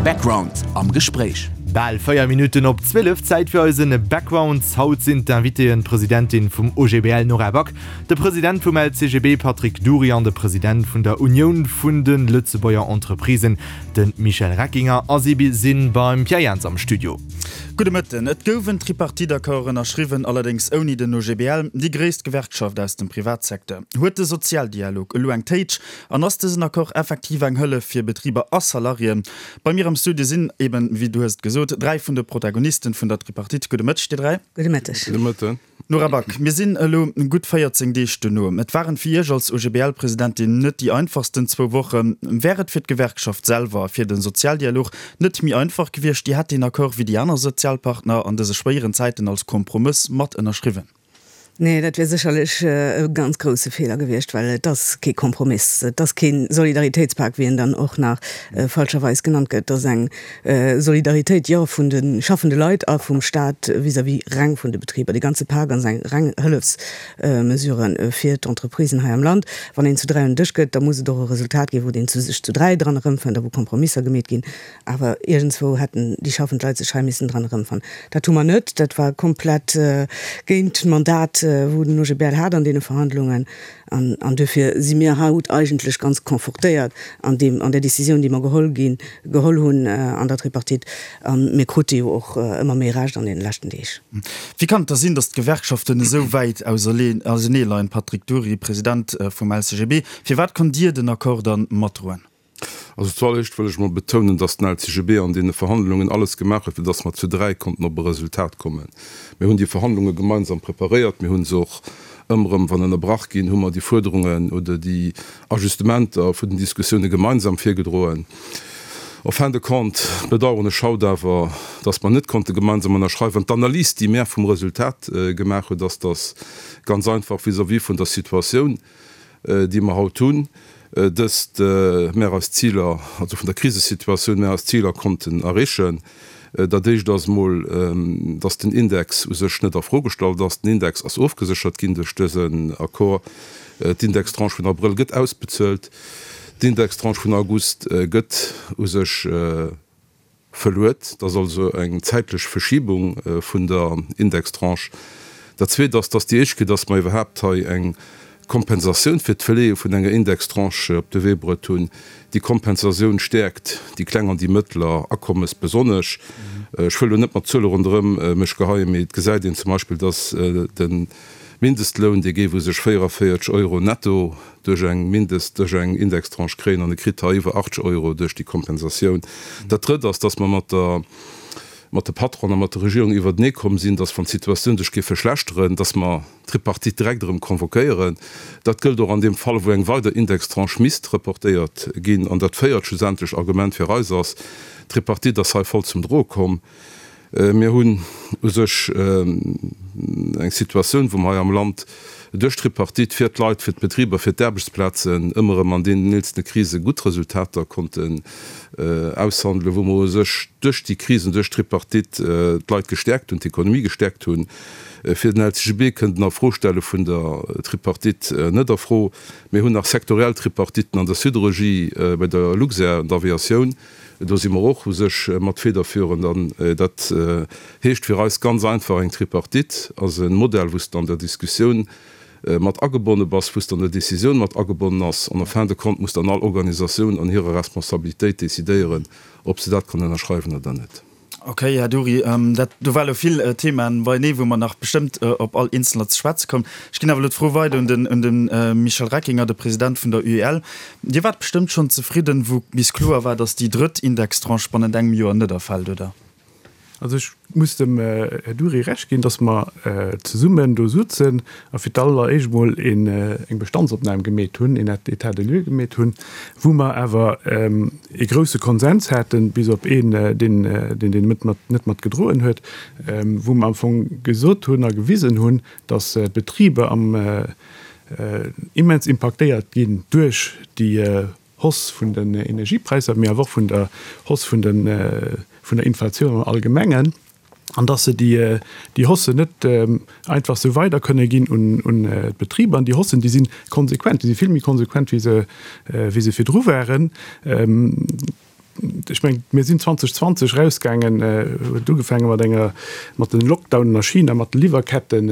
Background am Gespréich. Bal 4 Minutten op 12, Zäit fir eisen Background. Haut sinn d'Invitéen d'Presidentin vum OGBL Nora Back, de President vum LCGB Patrick Dury an de President vun der Unioun vun de Lëtzebuerger Entreprisen, de Michel Reckinger. A si si beim Pierre Jans am Studio. Gudde Mëtten. Et gouf en Tripartite-Accord ënnerschriwwen, allerdéngs ouni den OGBL, déi gréisst Gewerkschaft aus dem Privatsecteur. Huet de Sozialdialog elo eng Téitsch an ass dësen Accord effektiv eng Hëllef fir Betriber a Salariéen? Bei mir am Studio sinn eben, wéi du hues et gesot, 3 vun de Protagonisten vun der Tripartite. Gudde Mëtteg, dir 3. Gudde Mëtteg. Gudde Mëtten. Nora Back, mir sinn elo gutt 14 Deeg dono. Et waren fir Iech als OGBL-Presidentin net déi einfachsten zwou Wochen. Wär et fir d'Gewerkschaft selwer a fir de Sozialdialog net méi einfach gewiescht, Dir hätt deen Accord wéi déi aner Sozialpartner an dëse schwéieren Zäiten als Kompromëss mat ënnerschriwwen? Nee, dat wier sécherlech e ganz grousse Feeler gewiescht, well et ass kee Kompromiss, et ass kee Solidaritéitspak, wéi en dann och nach falscherweis genannt gëtt. Et ass eng Solidaritéit, jo, vun de schaffende Leit a vum Staat vis-à-vis reng vun de Betriber. Dee ganze Pak ass eng reng Hëllefsmesure fir d'Entreprisen hei am Land. Wann een zu 3 un den Dësch gëtt, da muss et och e Resultat ginn, wou een sech zu 3 dran erëmfënnt a wou Kompromisser gemeet ginn. Awer iergendswou hätten déi schaffend Leit sech hei missen dran erëmfannen. Dat hu mer net. Dat war komplett géint d'Mandat, wou den OGBL hat an deene Verhandlungen. An duerfir si mir haut eigentlech ganz confortéiert an deem, an där Décisioun, déi mer geholl ginn, geholl hunn an der Tripartite. A mir krute jo och ëmmer méi Recht an deene leschten Deeg. Wéi kann et da sinn, datt d'Gewerkschaften esou wäit auserneeleien? Patrick Dury, President vum LCGB, Firwat konnt Dir den Accord dann matdroen? Also zualleréischt wëll ech mol betounen, dass den LCGB an deene Verhandlungen alles gemaach huet, fir dass mer zu 3 konnten op e Resultat kommen. Mir hunn déi Verhandlunge gemeinsam preparéiert. Mir hu se och ëmmer erëm, wann ënnerbrach ginn, hu mer déi Fuerderungen oder déi Ajustementer vun den Diskussioune gemeinsam virgedroen. En fin de compte bedauern ech haut awer, dass mer net konnte gemeinsam ënnerschreiwen. D'Analys, déi mär vum Resultat gemaach huet, ass, dass ganz einfach vis-à-vis vun der Situatioun, déi mer haut hunn, dëst mär eis Ziler, also vun der Krisesituatioun, mär eis Ziler konnten erreechen. Dat éischt ass emol, dass den Index u sech net a Fro gestallt ass. Den Index ass ofgeséchert ginn duerch dësen Accord. D'Indextranche vun Abrëll gëtt ausbezuelt. D'Indextranche vun August gëtt u sech Verluet. Dat ass also eng zäitlech Verschibung vun der Indextranche. Dat Zweet ass, dass déi éischt Kéier, dass mer iwwerhaapt hei eng Kompensatioun fir d'Verleeë vun enger Indextranche op de Wee bruet hunn. Déi Kompensatioun stäerkt déi kleng an déi mëttler Akommes besonnesch. Ech wëll elo net mat Zuele ronderëm mech geheien, mee et gesäit een zum Beispill, dass de Mindestloun, dee géif u sech 44 Euro netto duerch eng Mindest, duerch eng Indextranche kréien an e kritt hei iwwer 80 Euro duerch déi Kompensatioun. Dat Drëtt ass, dass mer mat der, mat de Patronen a mat der Regierung iwwertenee komm sinn, dass wann d'Situatioun sech géif verschlechteren, dass mer d'Tripartite direkt erëm convoquéieren. Dat gëllt och an deem Fall, wou eng weider Indextranche misst reportéiert ginn. An dat véiert schlussendlech Argument fir eis ass, D'Tripartite ass hei voll zum Droe komm. Mir hunn u sech eng Situatioun, wou mer hei am Land duerch d'Tripartite fir d'Leit, fir d'Betriber, fir d'Aarbechtsplazen ëmmer erëm an deenen eelzene Krise gutt Resultater konnten aushandelen, wou mer u sech duerch déi Krisen, duerch d'Tripartite d'Leit gestäerkt hunn, d'Ekonomie gestäerkt hunn. Fir den LCGB kënnt en Afrostelle vun der Tripartite net a Fro. Mir hunn nach sektoriell Tripartiten an der Siderurgie, bei der Luxair, an der Aviatioun. Do si mer och u sech mat federführend. An dat heescht fir eis ganz einfach, Eng Tripartite ass e Modell, wou s de an der Diskussioun mat agebonne bass, wou s de an der Décisioun mat agebonnen ass. An en fin de compte muss dann all Organisatioun an hirer Responsabilitéit decidéieren, ob se dat kann ënnerschreiwen oder net. Ok, Här Dury, dat do war elo vill Themaen beienee, wou mer nach bestëmmt op all eenzelner ze schwätze kommen. Ech ginn awer elo d'Fro weider un den, un de Michel Reckinger, de President vun der UEL. Dir waart bestëmmt schonn zefridden, wou bis kloer war, datt déi drëtt Indextranche bannent engem Joer net erfält, oder? Also ech muss dem Här Dury Recht ginn, datt mer zesummen do sutzen a fir d'alleréischt emol eng Bestandsopnam gemeet hunn, een État des lieux gemeet hunn, wou mer awer ee grousse Konsens haten, bis op een, deen deen net mat gedroen huet, wou mer am Fong gesot hunn a gewisen hunn, datt d'Betriber am immens impaktéiert ginn duerch déi Hausse vun den Energiepräisser, mee awer och vun der Hausse vun der Inflatioun am Allgemengen. an dass se déi Haussen net einfach esou weider kënne ginn un d'Betriber. An déi Haussen, déi si konsequent, déi si vill méi konsequent, wéi se wéi se virdru waren. Ech mengen, mir sinn 2020 erausgaangen, huet ugefaange mat enger, mat den Lockdownen a China, mat de Liwwerketten,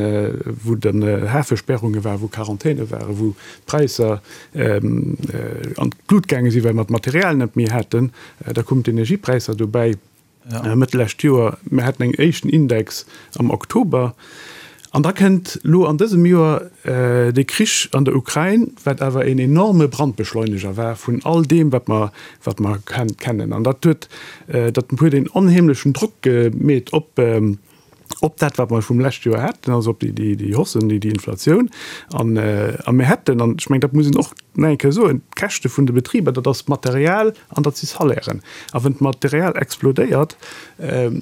wou dann Hafesperrunge waren, wou Quarantäne waren, wou d'Präisser an d'Lut gaange sinn, well mer d'Material net méi haten. Da koumen d'Energiepräisser dobäi. Mëtt lescht Joer, mir haten eng éischten Index am Oktober, an da kënnt elo an dësem Joer de Krich an der Ukrain, wat awer een enorme Brandbeschleuneger war vun all deem, wat mer, wat mer kennen. An dat huet, dat huet een onheemlechen Drock gemeet op, op dat, wat mer vum lescht Joer haten, also op déi, déi Haussen, déi Inflatioun. An, a mir hätten, an ech mengen, dat muss een och nach eng Kéier soen, d'Käschte vun de Betriber, dat ass d'Material an dat si Salairen. A wann d'Material explodéiert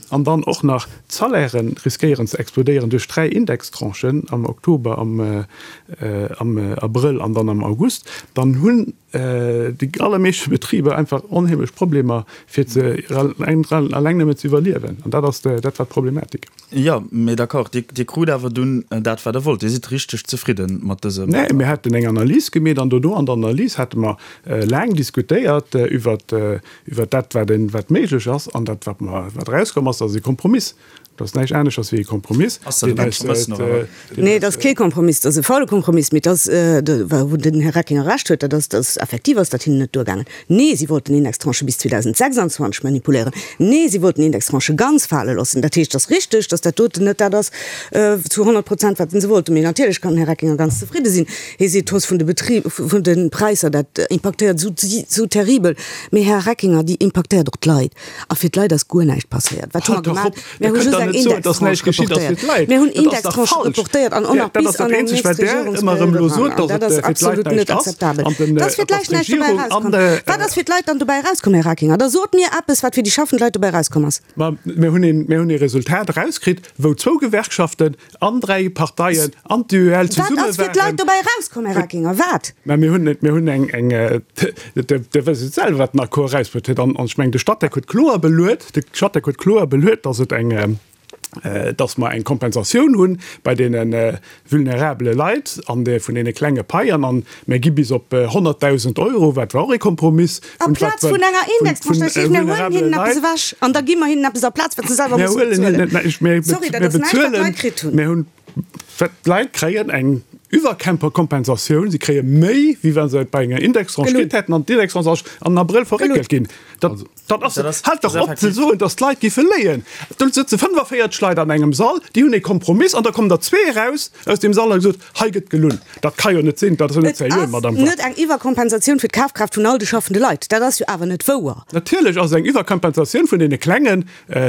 an dann och nach d'Salairen riskéieren ze explodéieren duerch 3 Indextranchen am Oktober, am, am Abrëll an dann am August, dann hunn déi allermeeschte Betriber einfach onheemlech Problemer fir ze alleng nëmmen ze iwwerliewen. An dat ass dat war d'Problematik. Jo, mee d'accord, Dir, Dir krut awer dunn dat wat Der wollt. Dir sidd richteg zefridden mat dësem. Nee, mir haten eng Analys gemeet an dono an der Analys hate mer laang diskutéiert iwwert iwwert dat wat een wat méiglech ass an dat wat mer wat erauskomm ass, dat ass e Kompromiss. Dat ass näischt aneschters wéi e Kompromiss. Ass dat e Kompromiss, Nora Back? Nee, dat ass kee Kompromiss, dat ass e faule Kompromiss, mee dat ass, wou den Här Reckinger Recht huet, dat ass, dass effektiv ass dat hinnen net duergaangen. Nee, si wollten Indextranchë bis 2026 manipuléieren. Nee, si wollten Indextranchë ganz fale loossen. Dat heescht, et ass richteg, dass dat doten net dat ass zu 100 Prozent, wat se wollten. Mee natierlech kann den Här Reckinger ganz zefridde sinn. Hie seet, d'Hausse vun de Betri-, vun de Präisser, dat impaktéiert esou, esou terribel. Mee Här Reckinger, déi impaktéiert och d'Leit. A fir d'Leit ass guer näischt passéiert. Wat hu mer gemaach? Mir hu just eng Indextranche reportéiert. Mir hunn Indextranchë reportéiert an och nach bis an eng nächst Regierungsperiod eran. An dat ass absolut net akzeptabel. Dass fir d'Leit näischt dobäi erauskomm. Wat ass fir d'Leit dann dobäi erauskomm, Här Reckinger? Da sot mir eppes, wat fir déi schaffend Leit dobäi erauskomm ass. Ma mir hunn ee Resultat erauskritt, wou zwou Gewerkschaften an 3 Parteien an d'UEL zesumme waren. Wat ass fir d'Leit dobäi erauskomm, Här Reckinger? Wat? Mä mir hunn, mir hunn eng, eng, Der wësst et selwer, wat den Accord erausbruet huet. An ech mengen, de Statec huet kloer beluet, de Statec huet kloer beluet, dass et eng, dass mer eng Kompensatioun hu bei deene vulnerabele Leit an de, vun deene klenge Paien. An mir gi bis op 100.000 Euro, wat war och ee Kompromiss. Amplaz vun enger Indextranche, dat heescht, mir huelen hinnen eppes ewech an da gi mer hinnen eppes aplaz, wat se selwer musse bezuelen. Sorry, dat ass näischt, wat d'Leit kritt hunn. Mir hunn, wat d'Leit kréien eng Iwwerkompensatioun, si kréie méi, wéi wa se et bei enger Indextranche kritt hätten, an d'Indextranche ass an Abrëll verréckelt ginn. Dat, dat ass, haalt dach op ze soen, datt d'Leit géife léien. Do sëtze 45 Leit an engem Sall, déi hunn ee Kompromiss an da kommen der zwee eraus aus deem Sall a gesot, Hei gëtt gelunn. Dat ka jo net sinn, dat ass jo net Et seriö, ass Madamm Back. net eng Iwwerkompensatioun fir d'Kafkraaft vun all de schaffende Leit. Dat ass jo awer net wouer. Natierlech ass et eng Iwwerkompensatioun vun deene klenge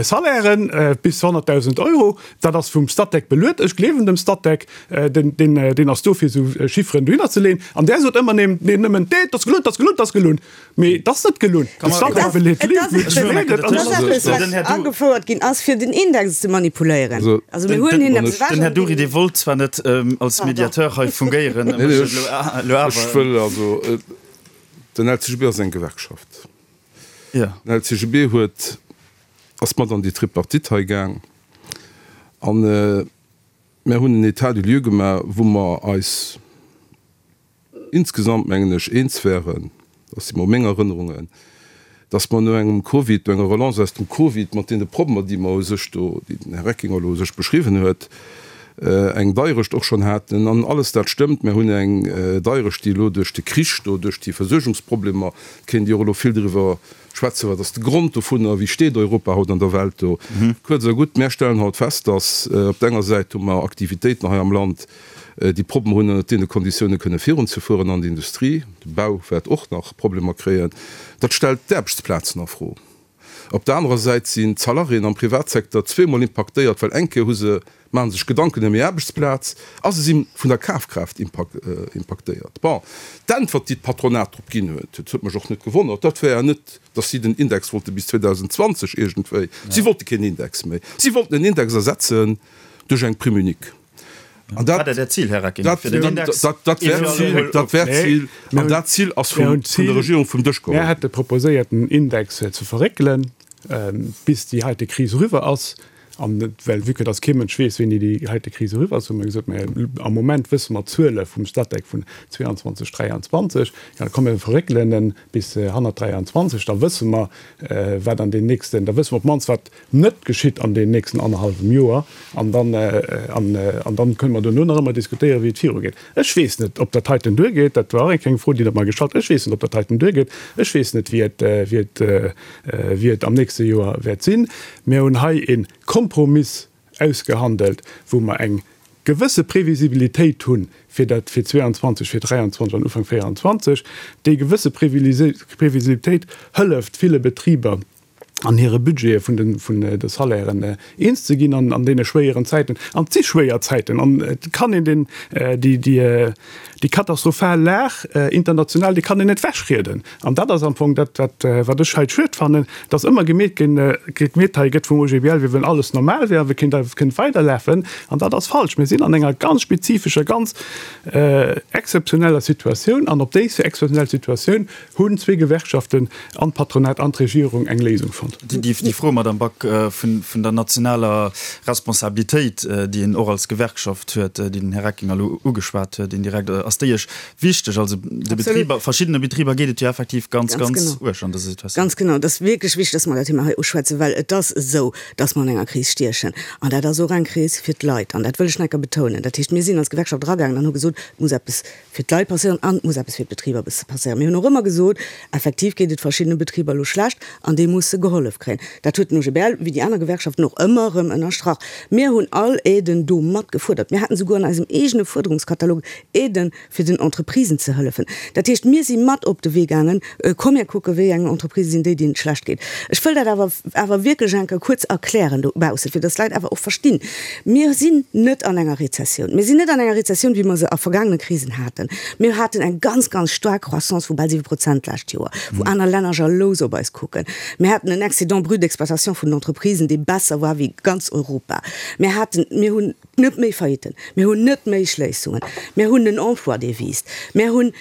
Salairen bis 100.000 Euro. Dat ass vum Statec beluet. Ech gleewen dem Statec, deen, deen, deen ass do fir esou Chifferen dohinner ze leeën. An där sot ëmmer ném, neen, nëmmen, Nee, et ass gelunn, et ass gelunn, et ass gelunn. Mee et ass net gelunn. De Statec beleet et. Et ass eppes, wat agefouert ginn ass, fir den Index ze manipuléieren. Also mir huelen hinnen eppes ewech. Den Här Dury, Dir wollt zwar net als Mediateur hei fungéieren, mécht et elo awer. Ech wëll also, den LCGB ass eng Gewerkschaft. Den LCGB huet, ass mat an déi Tripartite hei gaang an mir hunn en État des lieux gemaach, wou mer eis, insgesamt, mengen ech, eens wären, dat si mol meng Erënnerungen, dass mer no engem Covid, no enger Relance aus dem Covid mat deene Problemer, déi mer u sech do, déi den Här Reckinger elo u sech beschriwwen huet, eng Deierecht och schonn haten. An alles dat stëmmt. Mer hunn eng Deierecht, déi elo duerch de Krich do, duerch déi Versuergungsproblemer, kéint Dir och elo vill driwwer schwätzen, wat ass de Grond dovunner, wéi steet Europa haut an der Welt do. Kuerz a gutt, mär stellen haut fest, dass op der enger Säit hu mer Aktivitéiten hei am Land, déi Problemer hunn ënnert deene Konditioune kënne virunzefueren an d'Industrie, de Bau wäert och nach Problemer kréien. Dat stellt d'Aarbechtsplazen a Fro. Op der anerer Säit sinn d'Salariéen am Privatsecteur zweemol impaktéiert, well eng Kéier hu se, maache sech Gedanken ëm hir Aarbechtsplaz a se si vun der Kafkraaft impaktéiert. Bon, d'Äntwert, déi d'Patronat drop ginn huet, dat huet mech och net gewonnert, dat war net, datt si den Index wollte bis 2020 iergendwéi, si wollte keen Index méi, si wollten den Index ersetzen duerch eng Prime unique. An dat war dat Zil, Här Reckinger, fir den Index. Dat war d'Zil, dat war d'Zil, an dat Zil ass vun der Regierung vum Dësch geholl ginn. Mir hate proposéiert, den Index ze verréckelen, bis déi heite Kris eriwwer ass. An well, vue que dass kee Mënsch weess, wéini déi heite Kris eriwwer ass, hu mer gesot, Mä am Moment wësse mer d'Zuele vum Statec vun 22, 23, ja, komm mir verréckelen en bis hannert 23, da wësse mer, wat an den nächsten, da wësse mer op d'mannst, wat net geschitt an den nächsten annerhallwem Joer. An dann, an, an dann kënne mer duerno nach ëmmer diskutéieren, wéi et virugeet. Ech weess net, ob dat heiten duergeet. Dat war och eng kleng Fro, déi Der mer gestallt hutt. Ech weess net, ob dat heiten duergeet. Ech weess net, wéi et, wéi et, wéi et am nächste Joer wäert sinn. Mir hunn hei e Kompromiss ausgehandelt, wou mer eng gewësse Previsibilitéit hu fir dat fir 22, fir 23 an Ufank 24. Déi gewësse Previsibilitéit hëlleft ville Betriber an hire Budgete vun de vun de Salairen eens ze ginn an deene schwéieren Zäiten. An et si schwéier Zäiten an et kann een den déi déi déi katastrophal Lag international, déi kann een net wechrieden. An dat ass am Fong dat, wat, wat ech hei schued fannen, dass ëmmer gemeet ginn, gemeet hei gëtt vum OGBL, wéi wann alles normal wär a wéi kéint, kéint weiderlafen. An dat ass falsch. Mir sinn an enger ganz spezifescher, ganz exzeptioneller Situatioun. An op déi exzeptionell Situatioun hunn zwee Gewerkschaften an d'Patronat an d'Regierung eng Léisung fonnt. Déi Fro, Madame Back, vun, vun der nationaler Responsabilitéit, déi een och als Gewerkschaft huet, déi den Här Reckinger elo ugeschwat huet indirekt, ass déi Iech Wichteg, also de Betriber, verschiddene Betriber geet et jo effektiv ganz, ganz, ganz uerg an dëser Situatioun. Ganz genau. Et ass wierklech wichteg, dass mer dat Thema hei uschwätzen, well et ass esou, dass mer an enger Kris stiechen. An dat ass och eng Kris fir d'Leit. An dat wëll ech nach eng Kéier betounen. Dat heescht, mir sinn als Gewerkschaft eragaangen an hu gesot, et muss eppes fir d'Leit passéieren an et muss eppes fir d'Betriber passéieren. Mir hunn och ëmmer gesot, effektiv geet et verschiddene Betriber elo schlecht an déi musse gehollef kréien. Dat huet den OGBL, wéi déi aner Gewerkschaften och, ëmmer erëm ënnerstrach. Mir hunn all Aiden do mat gefuerdert. Mir haten souguer an eisem eegene Fuerderungskatalog Aiden, fir den Entreprisen ze hëllefen. Dat heescht, mir si mat op de Wee gaangen, komm mir kucken, wéi eng Entreprisë sinn déi, deenen et schlecht geet. Ech wëll dat awer awer wierklech eng Kéier kuerz erklären dobaussen, fir dass d'Leit awer och verstinn, Mir sinn net an enger Rezessioun. Mir sinn net an enger Rezessioun, wéi mer se a vergaangene Krisen haten. Mir haten eng ganz, ganz staark Croissance vu bal 7 Prozent d'lescht Joer, wou aner Länner jalous op eis kucken. Mir haten en Excédent brut d'exploitation vun den Entreprisen, dee besser war wéi ganz Europa. Mir haten, mir hunn Net méi Faillitten, mir hunn net méi Schléissungen, mir hunn en Emploi, dee wiisst, mir hunn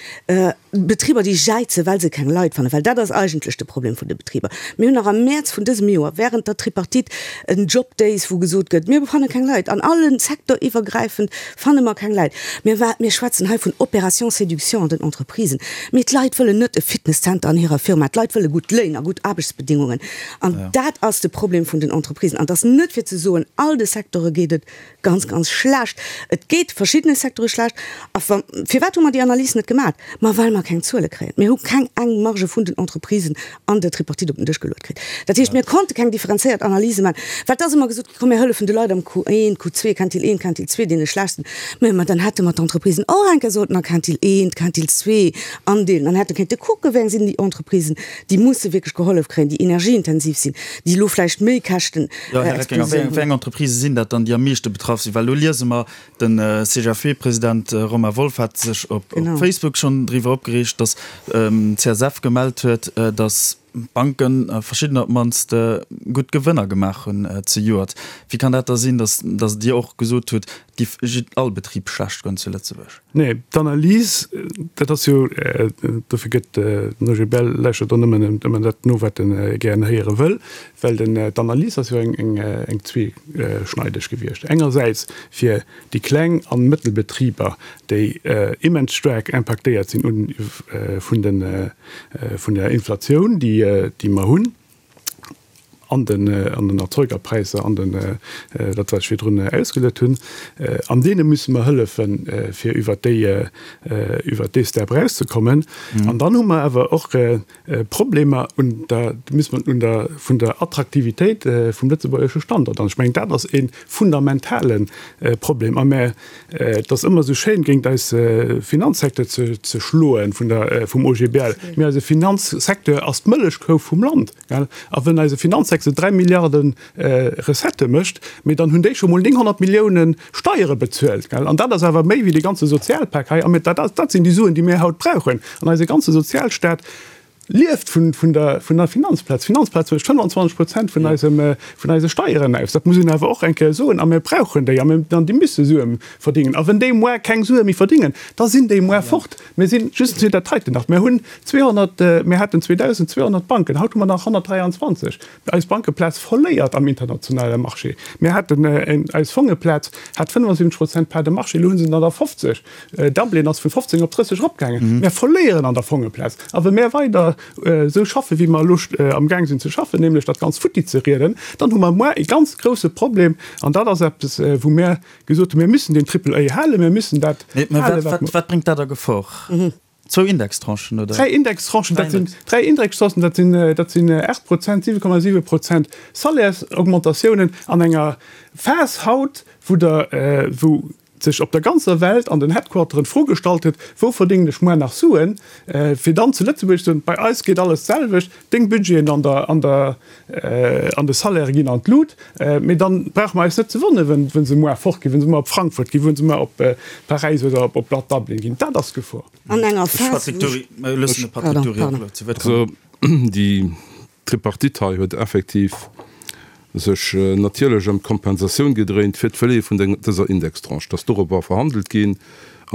Betriber, déi jäizen, well se keng Leit fannen, well dat ass eigentlech de Problem vun de Betriber. Mir hunn nach am Mäerz vun dësem Joer während der Tripartite en Job Days, wou gesot gëtt, mir fanne keng Leit, an allen sektoriwwergräifend fanne mer keng Leit. Mir mir schwätzen hei vun Opération séduction an den Entreprisen, mee d'Leit wëllen net e Fitnesscenter an hirer Firma, d'Leit wëlle gutt Léin a gutt Aarbechtsbedingungen. An dat ass de Problem vun den Entreprisen. An et ass net fir ze soen, all de Secteure geet et ganz, ganz schlecht. Et geet verschiddene Secteure schlecht. A wa, firwat hu mer déi Analys net gemat? Ma well mer keng Zuele kréien. Mir hu keng eng Marge vun den Entreprisen an der Tripartite op den Dësch geluet kritt. Dat heescht, mir konnte keng differenzéiert Analyse maachen, well et ass ëmmer gesot ginn, komm mir hëllefen de Leit am Q1, Q2, Quintil 1, Quintil 2, deene schlechtsten. Mä ma dann hätte mer d'Entreprisen och eng Kéier sollten a Quintil 1, Quintil 2 andeelen an hätte kéinte kucken, wéi eng sinn déi Entreprisen, déi musse wierklech gehollef kréien, déi energieintensiv sinn, déi elo vläicht méi Käschten Jo, Här Reckinger, wéi eng, wéi eng Entreprisë sinn dat dann, déi am meeschte betraff sinn? Well elo liese mer, de CGFP-President Romain Wolff hat sech op Facebook schonn driwwer opgereegt, datt d'CSF gemellt huet, datt Banken, verschiddener op d'mannst, gutt Gewënner gemaach hunn zejoert. Wéi kann dat da sinn, datt, datt Dir och gesot hutt, et géif all Betrib schlecht goen zu Lëtzebuerg? Nee, d'Analys, dat ass jo, dofir gëtt den OGBL lauschtert och nëmmen ëmmer dat no, wat e gären héiere wëll, well den, d'Analys ass jo eng, eng, eng zweeschneideg gewiescht. Engersäits fir déi kleng an Mëttelbetriber, déi immens staark impaktéiert sinn un, vun den, vun der Inflatioun, déi, déi mer hunn. an den an den Erzeugerpräisser, an den, dat wat ech virdrun ausgeluet hunn, an deene musse mer hëllefen, fir iwwert déi, iwwert dee Step erauszekommen. An dann hu mer awer och Problemer un der, muss mer un der, vun der Attraktivitéit vum lëtzebuergesche Standort. An ech mengen, dat ass e fundamentale Problem. A mä et ass ëmmer esou schéin, géint eis Finanzsecteur ze ze schloen vun der, vum OGBL, mä eise Finanzsecteur ass d'Mëllechkou vum Land. Gell? A wenn eise Finanzsecteur 3 Milliarde Recettë mécht, mee dann hunn déi scho mol 900 Millioune Steiere bezuelt. Gell? An dat ass awer méi wéi dee ganze Sozialpak hei. A mir, dat, dat sinn déi Suen, déi mir haut brauchen. An eise ganze Sozialstaat. Lieft vun der Finanzplaz. D'Finanzplaz mécht 25 Prozent vun eisem, vun eise Steieren aus. Dat muss een awer och eng Kéier soen. A mir brauchen déi. A mir, an déi musse Sue verdingen. A wenn déi muar keng Sue méi verdingen, da sinn déi muar fort. Mir sinn, just fir dat heiten nach, mir hunn 200, mir haten 2.200 Banken, haut hu mer nach 123. Eis Bankeplaz verléiert am internationale Marché. Mir haten, eis Fongeplaz hat 75 Prozent Part de marché, elo hu se der nach 50. Dublin ass vun 15 op 30 eropgaangen. Mär verléieren an der Fongeplaz. A wa mär weider esou schaffen, wéi mer elo amgaang sinn ze schaffen, nämlech dat Ganzt futti ze rieden, dann hu mer muar e ganz grousse Problem. An dat ass eppes, wou mär gesot hunn, Mir müssen deen Triple A halen, mir müssen dat halen, wat mer. Wat bréngt dat a Gefor? Zwou Indextranchen, oder? Dräi Indextranchen, dat sinn dräi Indextranchen, dat sinn, dat sinn 8 Prozent, 7,7 Prozent Salaires-Augmentatiounen an enger Phas haut, wou der, wou sech op der ganzer Welt an den Headquarteren d'Fro gestallt huet, Wou verdéngen ech muer nach Suen? Fir dann zu Lëtzebuerg ze soen, Bei eis geet alles d'selwecht, deng Budgeten an der, an der, an de Salairë ginn an d'Lut. Mee dann brauche mer eis net ze wonneren, wenn, wenn se muer fortginn, wenn se muer op Frankfurt ginn, wenn se muer op Paräis oder op, op Dublin ginn. Dat ass d'Gefor. An enger Phas, wou. Pardon, pardon. Also déi D'Tripartite hei huet effektiv sech natierlech ëm d'Kompensatioun gedréint fir d'Verleeë vun dëser Indextranche, dass dorobber verhandelt ginn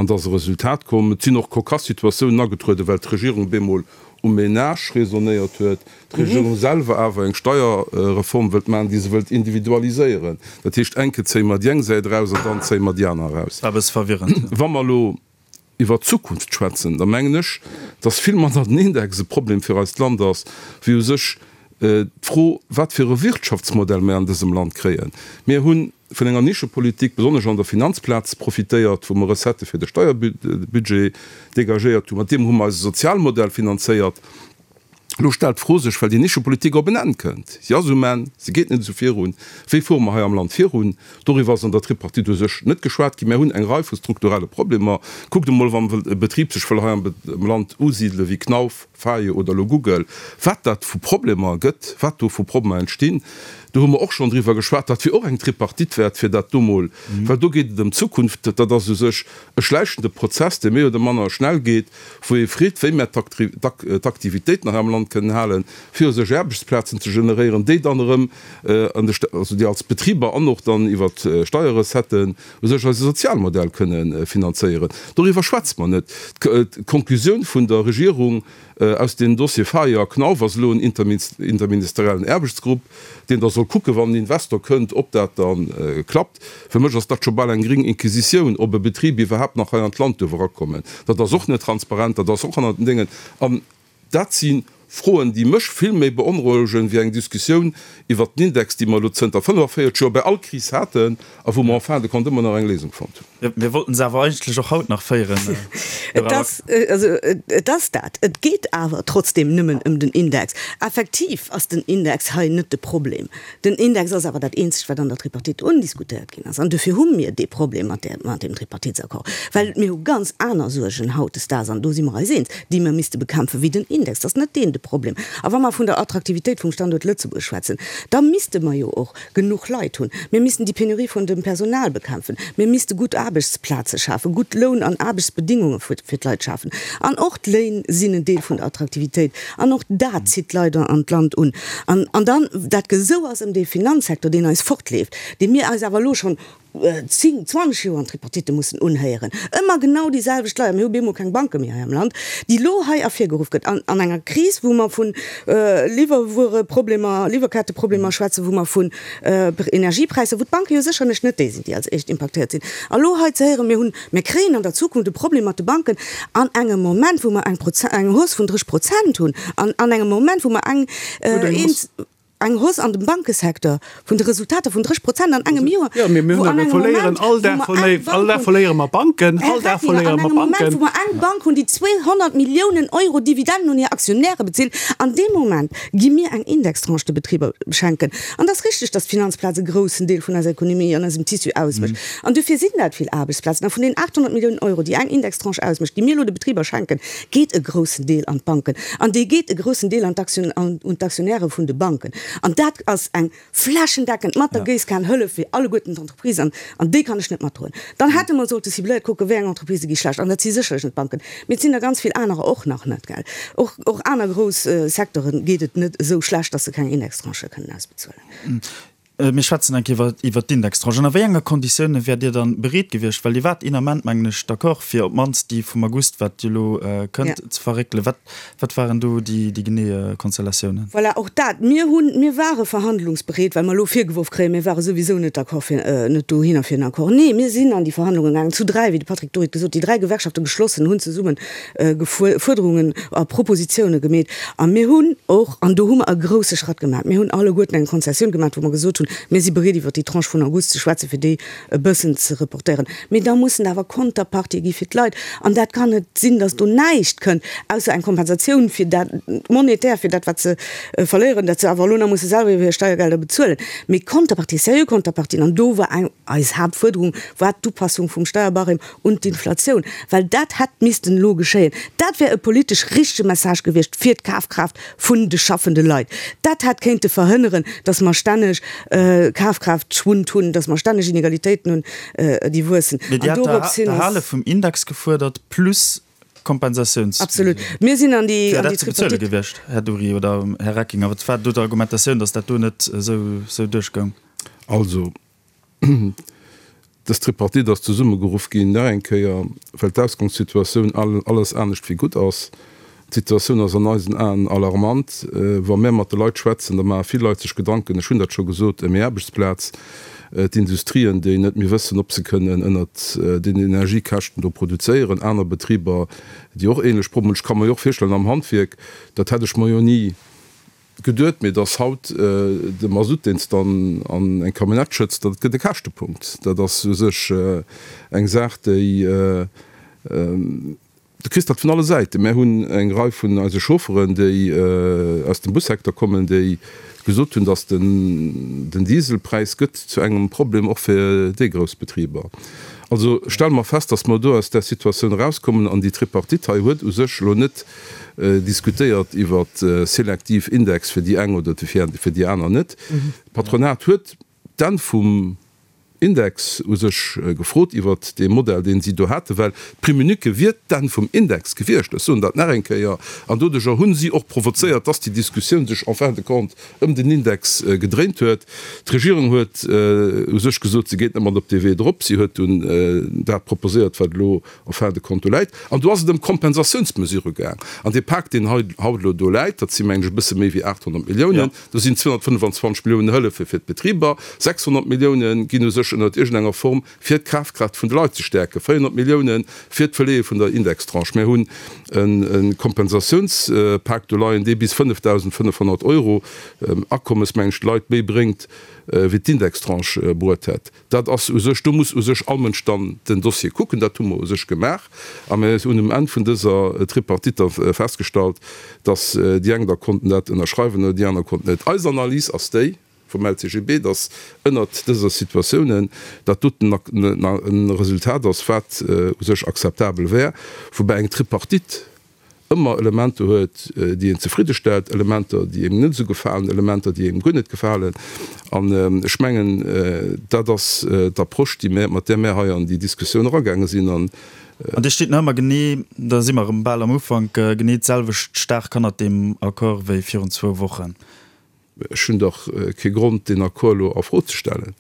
an dass e Resultat komm. Et sinn och cocasse Situatiounen agetrueden, well d'Regierung bemol um Ménage raisonnéiert huet, d'Regierung selwer awer eng Steierreform wëllt maachen, déi se wëllt individualiséieren. Dat heescht, enke zéie mer déi eng Säit eraus an dann zéie mer déi aner eraus. War e bësse verwirrend. Wa mer elo iwwer d'Zukunft schwätzen, da mengen ech, dass vill manner den Index e Problem fir eist Land ass, wéi u sech d'Fro, wat fir e Wirtschaftsmodell mir an dësem Land kréien. Mir hu vun enger Nischepolitik, besonnesch an der Finanzplaz, profitéiert, wou mer Recettë fir de Steierbudget dégagéiert hunn. Mat deem hu mer eise Sozialmodell finanzéiert. Elo stellt d'Fro sech, well déi Nischepolitik op en Enn kënnt, si ass um Enn, se geet net esou virun, wéi fuere mer hei am Land virun? Doriwwer ass an der Tripartite u sech net geschwat ginn. Mär hunn eng Rei vu strukturelle Problemer. Kuckt emol, wann e Betrib sech wëll hei am Land usidele wéi Knauf, Vaio oder elo Google, wat dat vu Problemer gëtt, wat do vu Problemer entstinn. Do hu mer och schonn driwwer geschwat. Dat wier och eng Tripartite wäert, fir dat do mol, well do geet et ëm d'Zukunft. Dat ass u sech e schläichende Prozess, dee méi oder manner schnell geet. wou ee freet, wéi mär d'Aktivitéiten hei am Land kënnen halen, fir u sech Aarbechtsplazen ze generéieren, déi dann erëm an de, also déi als Betriber an och dann iwwer d'Steierrecetten u sech eise Sozialmodell kënne finanzéieren. Doriwwer schwätze mer net. D'Konklusioun vun der Regierung aus deem Dossier Faye a Knauf ass elo en interministeriellen Aarbechtsgrupp, deen da soll kucken, wann en Investor kënnt, ob dat da klappt. Fir mech ass dat scho bal eng gring Inquisitioun, ob e Betrib iwwerhaapt nach hei an d'Land duerf erakommen. Dat ass och net transparent, dat ass och hannert den Déngen. An dat si Froen, déi mech vill méi beonrouegen, wéi eng Diskussioun iwwert den Index, déi mer elo zënter 45 Joer bei all Kris haten a wou mer en fin de compte ëmmer nach eng Léisung fonnt hunn. Mir wollten se awer eigentlech och haut nach féieren. Et ass, also et ass dat. Et geet awer trotzdem nëmmen ëm den Index. Effektiv ass den Index hei net de Problem. Den Index ass awer dat eenzegt, wat an der Tripartite undiskutéiert ginn ass. An dofir hu mir dee Problem mat där, mat deem Tripartitsaccord, well mir hu ganz aner Suergen hautdesdaags, an do si mer eis eens, déi mir misste bekämpfen, wéi den Index. Dat ass net deen de Problem. A wa mer vun der Attraktivitéit vum Standuert Lëtzebuerg schwätzen, da misste mer jo och genuch Leit hunn. Mir missten déi Penurie vun dem Personal bekämpfen. Mir misste gutt Aarbechtsplaze schafen, gutt Loun an Aarbechtsbedingunge fir d'Leit schafen. An och d'Léin sinn en Deel vun der Attraktivitéit. An och dat zitt d'Leit an d'Land un. An, an dann dat Gesou ass ëm dee Finanzsektor, deen eis fortleeft, dee mir eis awer elo schonn 10, 20 Joer an Tripartitte mussen unhéieren, ëmmer genau déi selwecht Leit, mir hu bemol keng Banke méi hei am Land, déi elo hei ervirgeruff gëtt an, an enger Kris, wou mer vu Liwwerwuereproblemer, Liwwerketteproblemer schwätzen, wou mer vun Energiepräisser, wou d'Banke jo sécherlech net déi sinn, déi als éischt impaktéiert sinn. A lo hei ze héieren, mir hunn, mir kréien an der Zukunft e Problem mat de Banken, an engem Moment, wou mer eng Proze-, eng Hausse vun 30 Prozent hunn, an an engem Moment, wou mer eng, eng Hausse an dem Bankesecteur vun de Resultater vun 30 Prozent an engem Joer, Jo, mee mir wou hunn an awer engem verléieren Moment, all wou Dag mer eng verléi-, all Bank Dag hunn, verléiere mer Banken, Här all Dag Reckinger, verléiere an mer engem Moment, Banken. wou mer eng Bank hunn, déi 200 Milliounen Euro Dividenden un hir Aktionäre bezilt, an deem Moment gi mir eng Indextranche de Betriber schenken. An et ass richtig, dass d'Finanzplaz e groussen Deel vun eiser Ekonomie an eisem Tissu ausmécht. An dofir sinn dat vill Aarbechtsplazen. A vun den 800 Milliounen Euro, déi eng Indextranche ausmécht, déi mir elo de Betriber schenken, geet e groussen Deel an d'Banken. An dee geet e groussen Deel an d'Aktioun, un d'Aktionäre vun de Banken. An dat ass eng flächendeckend mat der Géisskan Hëllef fir alleguerten d'Entreprisen, an déi kann ech net matdroen. Dann hätte mer sollte cibléiert kucken, wéi eng Entreprisë gi schlecht. An dat si sécherlech net d'Banken, mee et sinn der ganz vill anerer och nach net, gell. Och, och aner grouss Secteure geet et net esou schlecht, datt se keng Indextranchë kënnen ausbezuelen. Mir schwätzen eng Kéier iwwert d'Indextranche. Ënner wéi enger Konditioune wäert Dir dann bereet gewiescht, well Dir waart een Ament, mengen ech, d'accord, fir op d'mannst déi vum August, wat jo elo kënnt, ze verréckelen. Wat, wat waren do déi, déi genee Konstellatiounen? Voilà, och dat. Mir hunn, mir ware verhandlungsbereet, well mer elo virgeworf kréien, mir ware souwisou net d'accord fir, net dohinner fir en Accord. Nee, mir sinn an déi Verhandlungen gaangen, zu dräi, wéi de Patrick Dury et gesot huet, déi dräi Gewerkschafte geschlossen hunn zesumme Fuerderungen a Propositioune gemeet. A mir hunn och, an do hu mer e grousse Schratt gemaach, mir hunn alleguerten eng Konzessioun gemaach, wou mer gesot hunn, mir si bereet iwwert déi Tranche vun August ze schwätzen, fir déi e bëssen ze reportéieren. Mee da mussen awer Konterpartië gi fir d'Leit. An dat kann net sinn, datt do näischt kënnt, ausser eng Kompensatioun fir dat, monetär fir dat, wat se verléieren, dat se awer elo nach musse selwer iwwer hir Steiergelder bezuelen. Mee Konterpartie, seriö Konterpartien, an do war eng, eis Haaptfuerderung war d'Upassung vum Steierbarème un d'Inflatioun, well dat hätt missten elo geschéien. Dat wär e politesch richtege Message gewiescht fir d'Kafkraaft vun de schaffende Leit. Dat hätt kéinte verhënneren, datt mer stänneg Kafkraaftschwund hunn, datt mer stänneg Inegalitéiten hunn, déi wuessen. Mee Dir hat d'Erhale vum Index gefuerdert plus Kompensatiouns. Absolut. Mir sinn an déi Wär dat ze bezuele gewiescht, Här Dury oder Här Reckinger? Wat war do d'Argumentatioun, datt dat do net esou duerchgoung? Also, Dës Tripartite ass zesummegeruff ginn, nach eng Kéier, well d'Ausgangssituatioun alles anescht wéi gutt ass. D'Situatioun ass an eisen Aen alarmant. Wa mär mat de Leit schwätzen, da maache vill Leit sech Gedanken, ech hunn dat scho gesot, ëm hir Aarbechtsplaz, d'Industrien, déi net méi wëssen, ob se kënnen ënnert den Energiekäschten do produzéieren, aner Betriber, déi och ähnlech Problemer hunn. Ech ka mer jo och virstellen, am Handwierk, dat hätt ech mer jo ni Geduet, mee dass haut de Masutt, deen s de an eng Camionnette schëtts, dat gëtt e Käschtepunkt. Dat ass u sech eng Saach, déi, du kriss dat vun alle Säiten. Mär hunn eng Rei vun eise Chaufferen, déi aus dem Bussecteur kommen, déi gesot hunn, dass den Dieselpräis gëtt zu engem Problem och fir déi grouss Betriber. Also stelle mer fest, dass mer do aus där Situatioun erauskommen an déi Tripartite hei huet u sech elo net diskutéiert iwwer selektiv Index fir déi eng oder fir déi aner net. D'Patronat huet d'Enn vum Index u sech gefrot iwwert dee Modell, deen si do haten, well d'Prime unique wier d'Enn vum Index gewiescht. Ech soen dat nach eng Kéier. An doduerjer hu si och provozéiert, dass déi Diskussioun sech en fin de compte ëm den Index gedréint huet. D'Regierung huet u sech gesot, se geet net mat op dee Wee drop. Si huet dunn dat proposéiert, wat elo en fin de compte do läit. An do ass et ëm Kompensatiounsmesurë gaang. An dee Pak, deen hei haut elo do läit, dat si mengen ech e bësse méi wéi 800 Milliounen, do sinn 225 Milliounen Hëllefe fir d'Betriber, 600 Milliounen ginn u sech ënnert iergendenger Form fir d'Kafkraaft vun de Leit ze stäerken, 400 Milliounen fir d'Verleeë vun der Indextranche. Mir hunn e Kompensatiounspak do leien, dee bis 5.500 Euro Akommes, mengen ech, de Leit méi bréngt, wéi d'Indextranche bruet hätt. Dat ass u sech, do muss u sech all Mënsch dann den Dossier kucken. Dat hu mer u sech gemaach a mir hunn um Enn vun dëser Tripartite da festgestallt, dass déi eng da konnten dat ënnerschreiwen oder déi aner konnten net. Eis Analys ass déi vum LCGB, dass ënnert dëser Situatiounen dat doten e Resultat ass, wat u sech akzeptabel wär, woubäi eng Tripartite ëmmer Elementer huet, déi een zefridde stellt, Elementer, déi engem net esou gefalen, Elementer, déi engem guer net gefalen. An ech mengen, dat ass d'Approche, déi mär, mat där mär hei an déi Diskussioun eragaange sinn. An. An Dir stitt nach ëmmer genee, da si mer erëm bal am Ufank, genee d'selwecht staark hannert deem Accord wéi virun zwou Wochen. Ech hunn dach kee Grond, deen Accord elo a Fro ze stellen.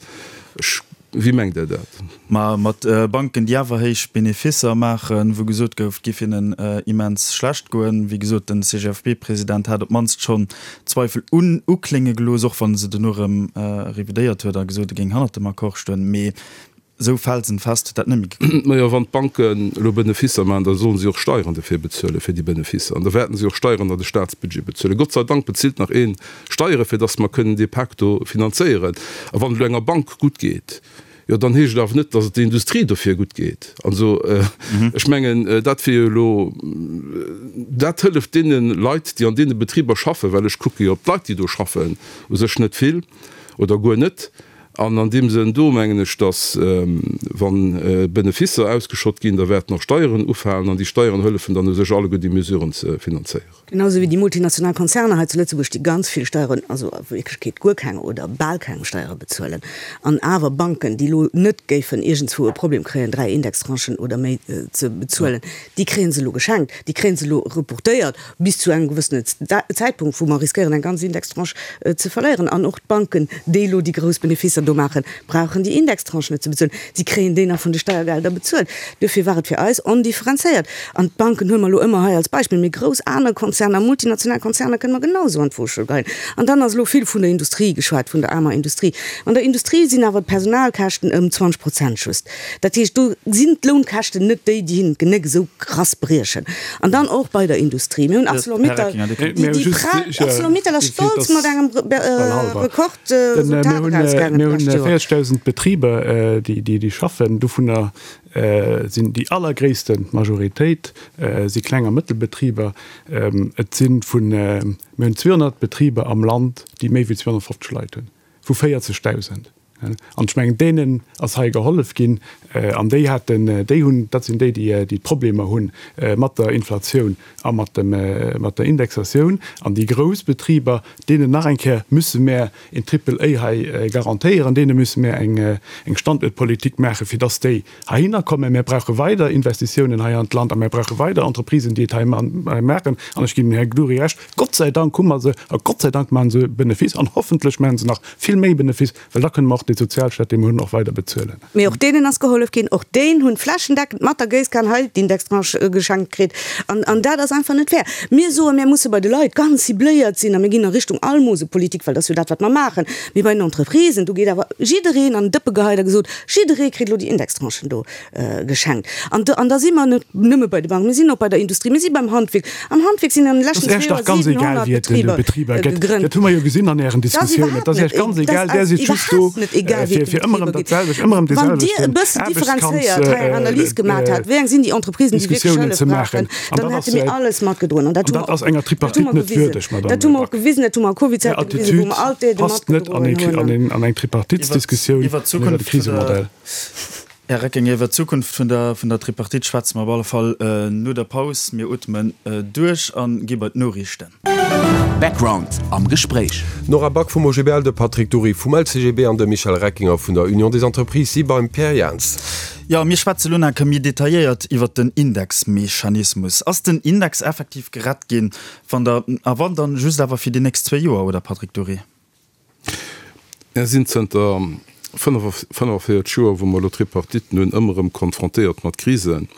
Ech, wéi mengt Der dat? Ma mat Banken, déi awer héich Benefisser maachen, wou gesot gouf, et géif hinnen immens schlecht goen. Wéi gesot, den CGFP-President hat op d'mannst schonn Zweifel un uklénge gelooss, och wann e se dono erëm revidéiert huet a gesot, e géing hannert dem Accord stoen. Mee Esou felsenfest huet dat net méi geklappt. Majo, wann d'Banken elo Benefisser maachen, da sollen si och Steieren dofir bezuelen, fir déi Benefisser. An da wäerten si och Steieren an de Staatsbudget bezuelen. Gott sei Dank bezilt nach ee Steieren, fir datt mer kënnen dee Pak do finanzéieren. A wann et elo enger Bank gutt geet, jo dann heescht et awer net, datt et der Industrie dofir gutt geet. Also ech mengen, dat wier jo elo, dat hëlleft deene Leit, déi an deene Betriber schaffen, well ech kucke jo op d'Leit, déi do schaffen, u sech net vill oder guer net. An an deem Sënn do mengen ech, dass, wa Benefisser ausgeschott ginn, da wäerten och Steieren ufalen an déi Steieren hëllefen dann u sech alleguer déi Mesuren ze finanzéieren. Genau esou wéi déi multinational Konzerner hei zu Lëtzebuerg, déi ganz vill Steieren, also a Wierklechkeet guer keng oder bal keng Steiere bezuelen, an awer Banken, déi elo net géifen iergendswou e Problem kréien, 3 Indextranchen oder méi ze bezuelen, déi kréie se elo geschenkt, déi kréie se elo reportéiert bis zu engem gewëssenen Zäitpunkt, wou mer riskéieren, eng ganz Indextranche ze verléieren. An och d'Banken, déi elo déi grouss Benefisser do maachen, brauchen déi Indextranche net ze bezuelen. Si kréien déi nach vun de Steiergelder bezuelt. Duerfir war et fir eis ondifferenzéiert. An d'Banken huele mer elo ëmmer hei als Beispill, mee grouss aner Konzerner, multinational Konzerner kënne mer genausou an d'Woschuel geheien. An dann ass elo vill vun der Industrie geschwat, vun der aarmer Industrie. An der Industrie sinn awer d'Personalkäschten ëm 20 Prozent just. Dat heescht, do sinn d'Lounkäschten net déi, déi hinnen d'Genéck esou krass briechen. An dann och bei der Industrie. Mir hunn Arcelor-Mittal, déi Arcelor-Mittal ass stolz mat engem Rekord. Mir hunn 40.000 Betriber, déi schaffen. Dovunner sinn déi allergréisste Majoritéit si Kleng a Mëttelbetriber. Et si vun, mir hunn 200 Betriber am Land, déi méi wéi 250 Leit hunn, vu 40.000. An ech mengen, deenen ass hei gehollef ginn. An déi haten, déi hunn, dat sinn déi, déi d'Problemer hu mat der Inflatioun a mat dem, mat der Indexatioun. An déi grouss Betriber, deenen nach eng Kéier müsse mär een Triple A hei garantéieren, deene müsse mär eng, eng Standuertpolitik maachen, fir dass déi heihinner kommen. Mär brauche weider Investitiounen hei an d'Land a mär brauche weider Entreprisen, déi et hei maachen. An ech ginn dem Här Gdury Recht, Gott sei Dank hu mer se a Gott sei Dank maache se Benefice an hoffentlech maache se nach vill méi Benefice, well da kënne mer och dee Sozialstaat, dee mer hunn, och weider bezuelen. Mee och deenen ass gehollef ginn. Och déen hunn flächendeckend mat der Géisskan hei d'Indextranche geschenkt kritt. An, an dat ass einfach net fair. Mir soen, mir musse bei de Leit ganz cibléiert sinn a mir ginn a Richtung Almosepolitik, well dat ass jo dat, wat mer maachen. Mee bei den Entreprisen, do geet awer jiddereen an den Dëppe geheit a gesot, jidderee kritt elo déi Indextranchen do. Geschenkt. An do, an da si mer net nëmme bei de Banken, mir sinn och bei der Industrie, mir si beim Handwierk. Am Handwierk sinn an de leschten zwee Joer 700 Betriber gegrënnt. Dat hu mer jo gesinn an Ären Diskussiounen. Dat ass Iech ganz egal. Där sidd just do, fir ëmmer erëm dat selwecht, ëmmer erëm dee selwechten Wann Dir e bëssen differenzéiert hei eng Analys gemat hätt, wéi eng sinn déi Entreprisen, déi wierklech Hëllef brauchen, dann hätte mir alles matgedroen. An dat ass enger Tripartite net würdeg, Madame Back. Dat hu mer och gewisen, dat hu mer a Covid-Zäite gewisen, wou mer all d'Aidë matgedroen hunn. Är Attitüd passt net an eng Tripartitsdiskussioun iwwer e Krisemodell. Här Recking, iwwer d'Zukunft vun der vun der Tripartite schwätze mer op alle Fall no der Paus. Mir ootmen duerch a gi bei d'Noriichten. Background am Gespréich. D'Nora Back vum OGBL, de Patrick Dury vum LCGB an de Michel Reckinger vun der Union des Entreprises si beim Pierre Jans. Jo, mir schwätze lo nach méi detailléiert iwwert den Indexmechanismus. Ass den Index effektiv gerett ginn? Wann der, a wann, dann just awer fir déi nächst zwéi Joer, oder Patrick Dury? Mir sinn zënter 45 Joer, wou mer elo Tripartiten hunn, ëmmer erëm konfrontéiert mat Krisen.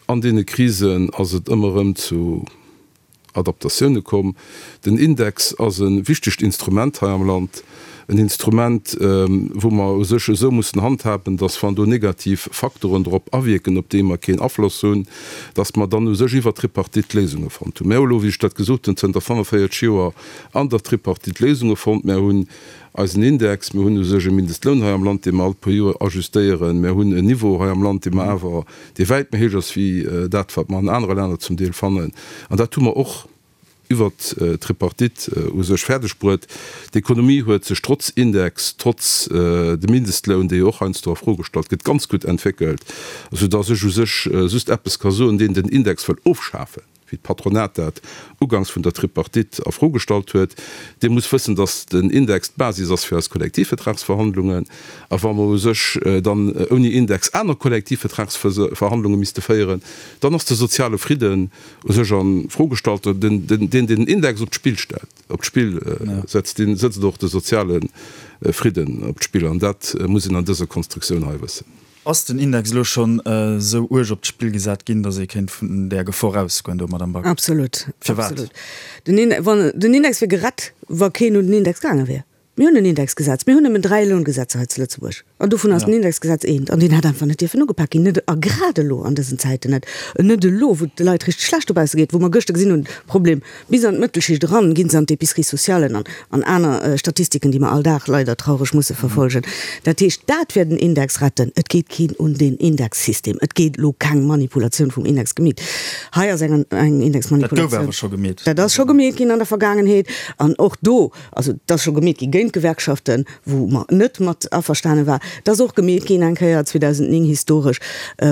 An deene Krisen ass et ëmmer erëm zu Adaptatioune komm. Den Index ass e wichtegt Instrument hei am Land, en Instrument, wou mer u sech esou mussen handhaben, datt wann do negativ Faktoren drop awierken, op déi mer keen Afloss hunn, datt mer dann u sech iwwert d'Tripartite Léisunge fonnt hunn. Mir hu elo, wéi ech dat gesot hunn, zënter 45 Joer an der Tripartite Léisunge fonnt. Mär hunn eisen Index, mir hunn u sech e Mindestloun hei am Land, dee mer all puer Joer ajustéieren, mär hunn en Niveau hei am Land, dee mer awer, dee wäit méi héich ass wéi dat, wat mer an anere Länner zum Deel fannen. An dat hu mer och iwwert d'Tripartite u sech fäerdeg bruet. D'Ekonomie huet sech trotz Index, trotz dem Mindestloun, dee jo och heiansdo a Fro gestallt gëtt, ganz gutt entwéckelt, soudass ech u sech just eppes ka soen, Deen den Index wëll ofschafen, wéi d'Patronat dat uganks vun der Tripartite a Fro gestallt huet, dee muss wëssen, datt den Index d'Basis ass fir eis Kollektivvertragsverhandlungen. A wa mer u sech dann ouni Index aner Kollektivvertragsverhandlunge misste féieren, dann ass de soziale Fridden u sech a Fro gestallt. Deen, deen den Index op d'Spill stellt, op d'Spill setzt, dee sëtzt och de soziale Fridden op d'Spill. An dat muss een an dëser Konstruktioun hei wëssen. Ass den Index elo schonn esou uerg op d'Spill gesat ginn, datt ee kéint vun där Gefor ausgoen do, Madamm Back? Absolut. Firwat? Absolut. Den Index, wann, den Index wier gerett, wa keen un den Index gaange wier. Mir hunn en Indexgesetz. Mir hunn nëmmen 3 Loungesetzer hei zu Lëtzebuerg. An dovun ass den Indexgesetz eent. An deen hätt einfach net dierfen ugepak ginn. Net, a grad elo an dësen Zäiten net. Net elo, wou et de Leit richteg schlecht dobausse geet, wou mer gëschter gesinn hunn, Problem, Bis an d'Mëttelschicht eran ginn se an d'Épiceries socialen an an aner Statistiken, déi mer all Dag leider traureg musse verfolgen. Dat heescht, dat wär den Index retten. Et geet keen un deen Indexsystem. Et gétt elo keng Manipulatioun vum Index gemeet. Hei ass eng eng Indexmanipulatioun. Dat gouf awer scho gemeet. Dat ass scho gemeet ginn an der Vergaangenheet. An och do, also et ass scho gemeet gi géint. géint d'Gewerkschaften, wou mer net mat averstane war. Et ass och gemeet ginn eng Kéier 2009 historesch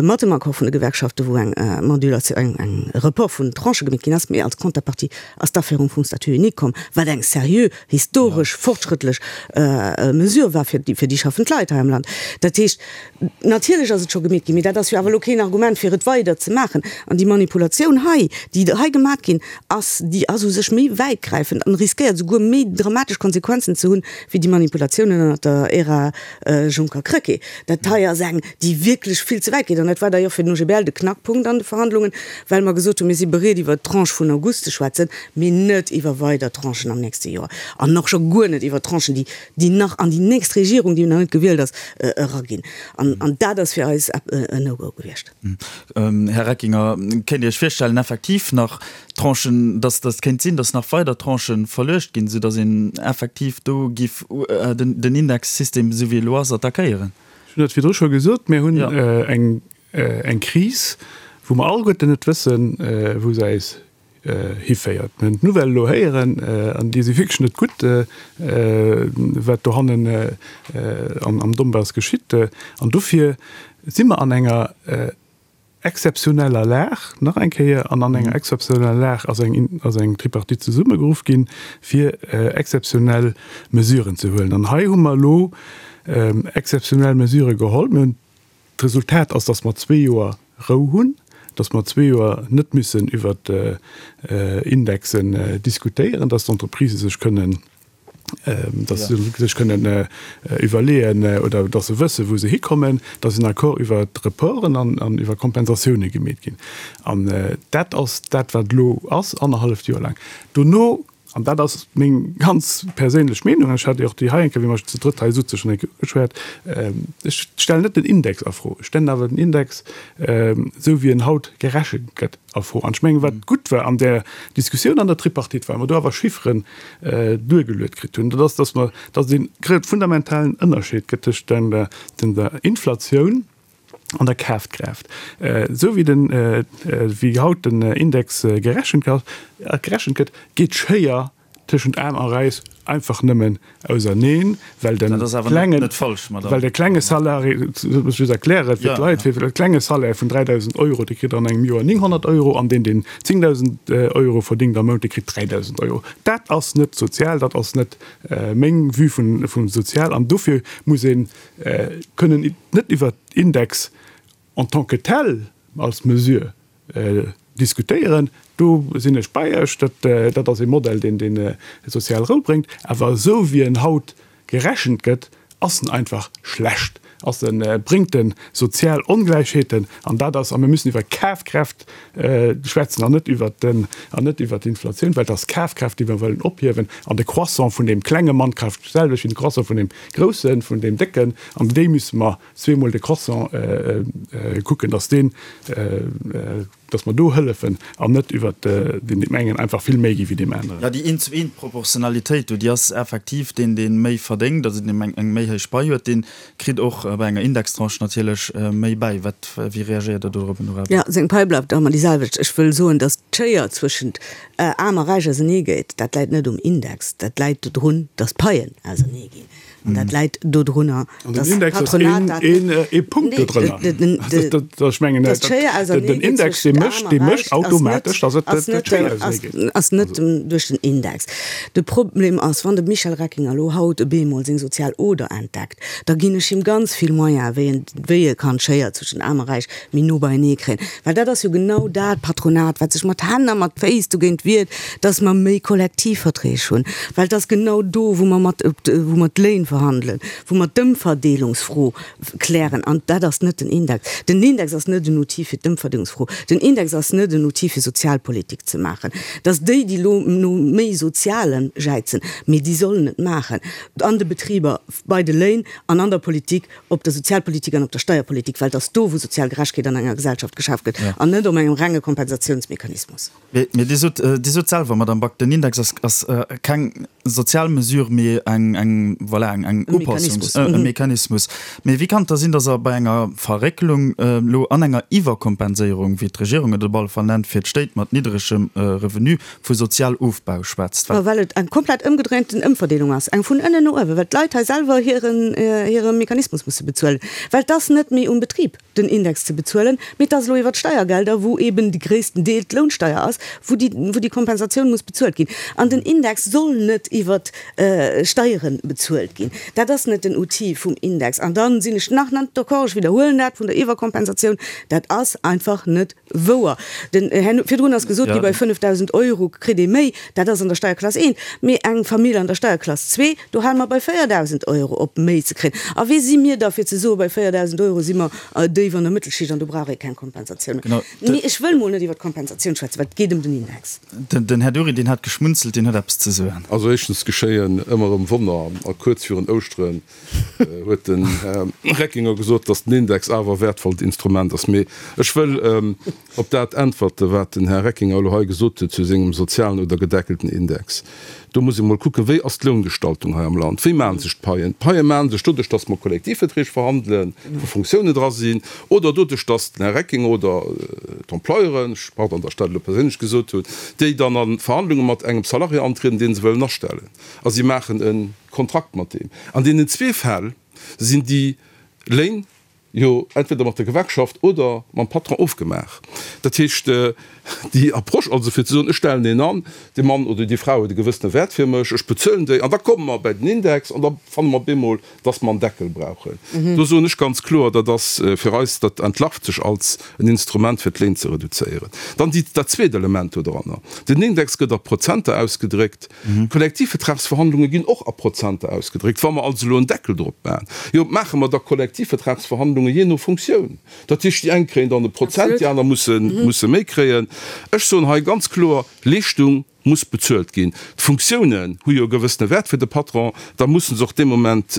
mat dem Accord vun de Gewerkschaften, wou eng Modulation, eng Report vun Tranchë gemeet ginn ass, mee als Contrepartie ass d'Aféierung vum Statut unique komm, wat eng seriö, historesch, fortschrëttlech Mesure war fir déi schaffend Leit hei am Land. Dat heescht, natierlech ass et scho gemeet ginn, mee dat ass jo awer elo keen Argument fir et weider ze maachen. An déi Manipulatioun hei, déi hei gemat ginn ass, déi ass u sech méi wäitgräifend an riskéiert esouguer méi dramatesch Konsequenzen ze hunn, wéi déi Manipulatiounen ënnert der Ära Juncker-Krecké. Dat hei ass eng, déi wierklech vill ze wäit geet. An dat war d'ailleurs fir den OGBL de Knackpunkt an de Verhandlungen, well mer gesot hunn, mir si bereet iwwert d'Tranche vun August ze schwätzen, mee net iwwer weider Tranchen am nächste Joer an och scho guer net iwwer Tranchen, déi, déi nach an déi nächst Regierung, déi nach net gewielt ass, eraginn. An, an dat ass fir eis en No-Go gewiescht. Här Reckinger, kéint Dir Iech virstellen, effektiv nach Tranchen, dass dass kéint sinn, dass nach weider Tranchë verluecht ginn, soudass een effektiv do giff den Indexsystem, esou wéi e elo ass, attackéieren? Ech hunn dat virdru scho gesot, Mir hunn eng eng Kris, wou mer alleguerten net wëssen, wou se eis hiféiert. Mir hunn d'Nouvelle elo héieren, an déi si wierklech net gutt, wat dohannen am Donbass geschitt. An dofir si mer an enger exzeptioneller Lag, nach eng Kéier, an an enger exzeptioneller Lag ass eng, ass eng Tripartite zesummegeruff ginn, fir exzeptionell Mesuren ze huelen. An hei hu mer elo exzeptionell Mesurë geholl. Mir hunn D'Resultat ass, dass mer zwee Joer Rou hunn, dass mer zwee Joer net müssen iwwert Indexen diskutéieren, dass d'Entreprisë sech kënnen, dass se sech kënnen iwwerleeën oder dass se wëssen, wou se hikommen, dass en Accord iwwert Reporten an iwwer Kompensatioune gemeet ginn. An dat ass dat, wat elo ass, annerhalleft Joer laang. Dono An dat ass meng ganz perséinlech Meenung, an ech hat déi och déi hei eng Kéier, wéi mer zu drëtt hei souze schonn eng Kéier ugeschwat, ech stellen net den Index a Fro, ech stellen awer den Index, esou wéi en haut gerechent gëtt, a Fro. An ech mengen, wat gutt war an där Diskussioun an der Tripartite, well mer do awer Chifferen duergeluet kritt hunn, dat ass, dass mer, dass et ee fundamentalen Ënnerscheed gëtt tëscht der Inflatioun, an der Kafkraaft. Esou wéi den, wéi haut den Index gerechent gerechent gëtt, geet d'Schéier tëschent Aarm a Räich einfach nëmmen auserneen, well de klengen, well de klenge Salarié, dat muss ech just erklären fir d'Leit, fir de klenge Salaire vun 3.000 Euro, dee kritt an engem Joer 900 Euro an deen, deen 10.000 Euro verdéngt am Mount, dee kritt 3.000 Euro. Dat ass net sozial, dat ass net meng Vue vum sozial an dofir muss een kënnen net iwwert Index en tant que tel als Mesure diskutéieren, do sinn ech bei Iech, dat ass ee Modell, deen dee sozial Rou bréngt, awer esou wéi en haut gerechent gëtt, ass en einfach schlecht, ass en, bréngt e sozial Ongläichheeten an dat ass, a mir müssen iwwer Kafkraaft schwätzen an net iwwert den, an net iwwert d'Inflatioun, well et ass d'Kafkraaft, déi mer wëllen ophiewen an de Croissant vun deem klenge Mann kaaft d'selwecht wéi de Croissant vun deem Groussen, vun deem Décken, an déi müsse mer zweemol de Croissant kucken, dass deen, dass mer do hëllefen an net iwwert deem engen einfach vill méi gi wéi deem aneren. Jo, déi Eent-zu-eent-Proportionalitéit do, déi ass effektiv, deen, dee méi verdéngt, also deen eng méi héich Pai huet, dee kritt och bei enger Indextranche natierlech méi bäi. Wat, wéi reagéiert Der dorop, Nora Back? Jo, seng Pai bleift ëmmer déi selwecht. Ech wëll soen, dass d'Schéier zwëschent Aarm a Räich ausernee geet, dat läit net um Index, dat läit dodrun, datt d'Paien ausernee ginn. An dat läit dodrunner, datt d'Patronat dat. Den Index ass ee Punkt dodrënner. Ech mengen, den Index, dee mécht, dee mécht automatesch, datt et d'Schéier ausernee geet. Ass net duerch den Index. De Problem ass, wann de Michel Reckinger elo haut op eemol seng sozial Oder entdeckt, da ginn ech him ganz vill Moyene wéi en, wéi e kann d'Schéier zwëschen Aarm a Räich méi no beienee kréien. Well dat ass jo genau dat Patronat, wat sech mat Hänn a mat Féiss dogéint wiert, dass mer méi Kollektivverträg hunn. Well et ass genau do, wou mer mat, wou mer d'Léin verhandelen, wou mer d'Ëmverdeelungsfro klären. An dat ass net den Index. Den Index ass net en Outil fir d'Ëmverdeelungsfro. Den Index ass net en Outil fir Sozialpolitik ze maachen. Dass déi, déi elo no méi Sozialem jäizen, mee déi sollen et maachen an de Betriber, bei de Léin an an der Politik, op der Sozialpolitik an op der Steierpolitik, well et ass do, wou sozial Gerechkeet an enger Gesellschaft geschaf gëtt, an net op engem renge Kompensatiounsmechanismus. Mee Dir sot, Dir sot selwer, Madame Back, den Index ass, ass keng. sozial Mesure, mee eng, eng, voilà, eng, eng Upassungs-, e Mechanismus. Mee wéi kann et da sinn, datt Der bei enger Verréckelung elo an enger Iwwerkompenséierung, wéi d'Regierung et op alle Fall nennt, fir d'Stéit mat niddregem Revenu, vu Sozialofbau schwätzt? Well well et eng komplett ëmgedréinten Ëmverdeelung ass, eng vun ënnen no uewen, well d'Leit hei selwer hiren, hire Mechanismus musse bezuelen, well et ass net méi um Betrib, den Index ze bezuelen, mee et ass elo iwwert d'Steiergelder, wou eeben de gréissten Deel d'Lounsteier ass, wou déi, wou déi Kompensatioun muss bezuelt ginn. An den Index soll net iwwert Steiere bezuelt ginn. Dat ass net den Outil vum Index. An da sinn ech nach net d'accord, ech widderhuelen dat, vun der Iwwerkompensatioun, dat ass einfach net wouer. Den Här, virdrun ass gesot gi, bei 5.000 Euro kritt ee méi, dat ass an der Steierklass 1, mee eng Famill an der Steierklass 2, do hale mer bei 4.000 Euro op méi ze kréien. A wie si mir da fir ze soen, bei 4.000 Euro si mer déif an der Mëttelschicht an do brauch ee keng Kompensatioun méi. Mee ech wëll mol net iwwer d'Kompensatioun schwätzen, well et geet ëm den Index. Den Här Dury, deen hat geschmunzelt, deen huet eppes ze soen. Also éischtens geschéien ëmmer erëm Wonner a kuerz virun Ouschteren huet den Här Reckinger gesot, datt den Index awer e wäertvollt Instrument ass. Mee ech wëll op dat äntwerte wat den Här Reckinger elo hei gesot huet zu sengem sozialen oder gedeckelten Index. Do muss ee mol kucken, wéi ass d'Loungestaltung hei am Land, wéi maache sech d'Paien? D'Paie maache sech doduerch, datt mer Kollektivverträg verhandelen, wou Funktiounen dra sinn, oder doduerch, datt den Här Reckinger oder d'Employeuren, pardon, datt ech dat elo perséinlech gesot hunn, déi dann a Verhandlunge mat engem Salarié antrieden, dee se wëllen astellen, a si maachen e Kontrakt mat deem. An deenen zwee Fäll sinn déi Léin jo entweder mat der Gewerkschaft oder mam Patron ofgemaach. Dat heescht, déi Approche also fir ze soen, ech stellen een an, dee Mann oder déi Fra huet e gewëssene Wäert fir mech, ech bezuelen déi an da komme mer bäi den Index an da fanne mer bemol, dass mer en Deckel brauchen. Do soen ech ganz kloer, dat ass fir eis, dat entlarvt sech als en Instrument fir d'Léin ze reduzéieren. Dann déi, dat zweet Element doranner, Den Index gëtt a Prozenter ausgedréckt. D'Kollektivvertragsverhandlunge ginn och a Prozenter ausgedréckt. Wa mer also elo en Deckel drop maachen, jo, maache mer da Kollektivvertragsverhandlunge jee no Funktioun. Dat heescht, déi eng kréien dann e Prozent, déi aner musse méi kréien. Ech soen hei ganz kloer, Leeschtung muss bezuelt ginn. D'Funktiounen hu jo e gewëssene Wäert fir de Patron, da musse se och dee Moment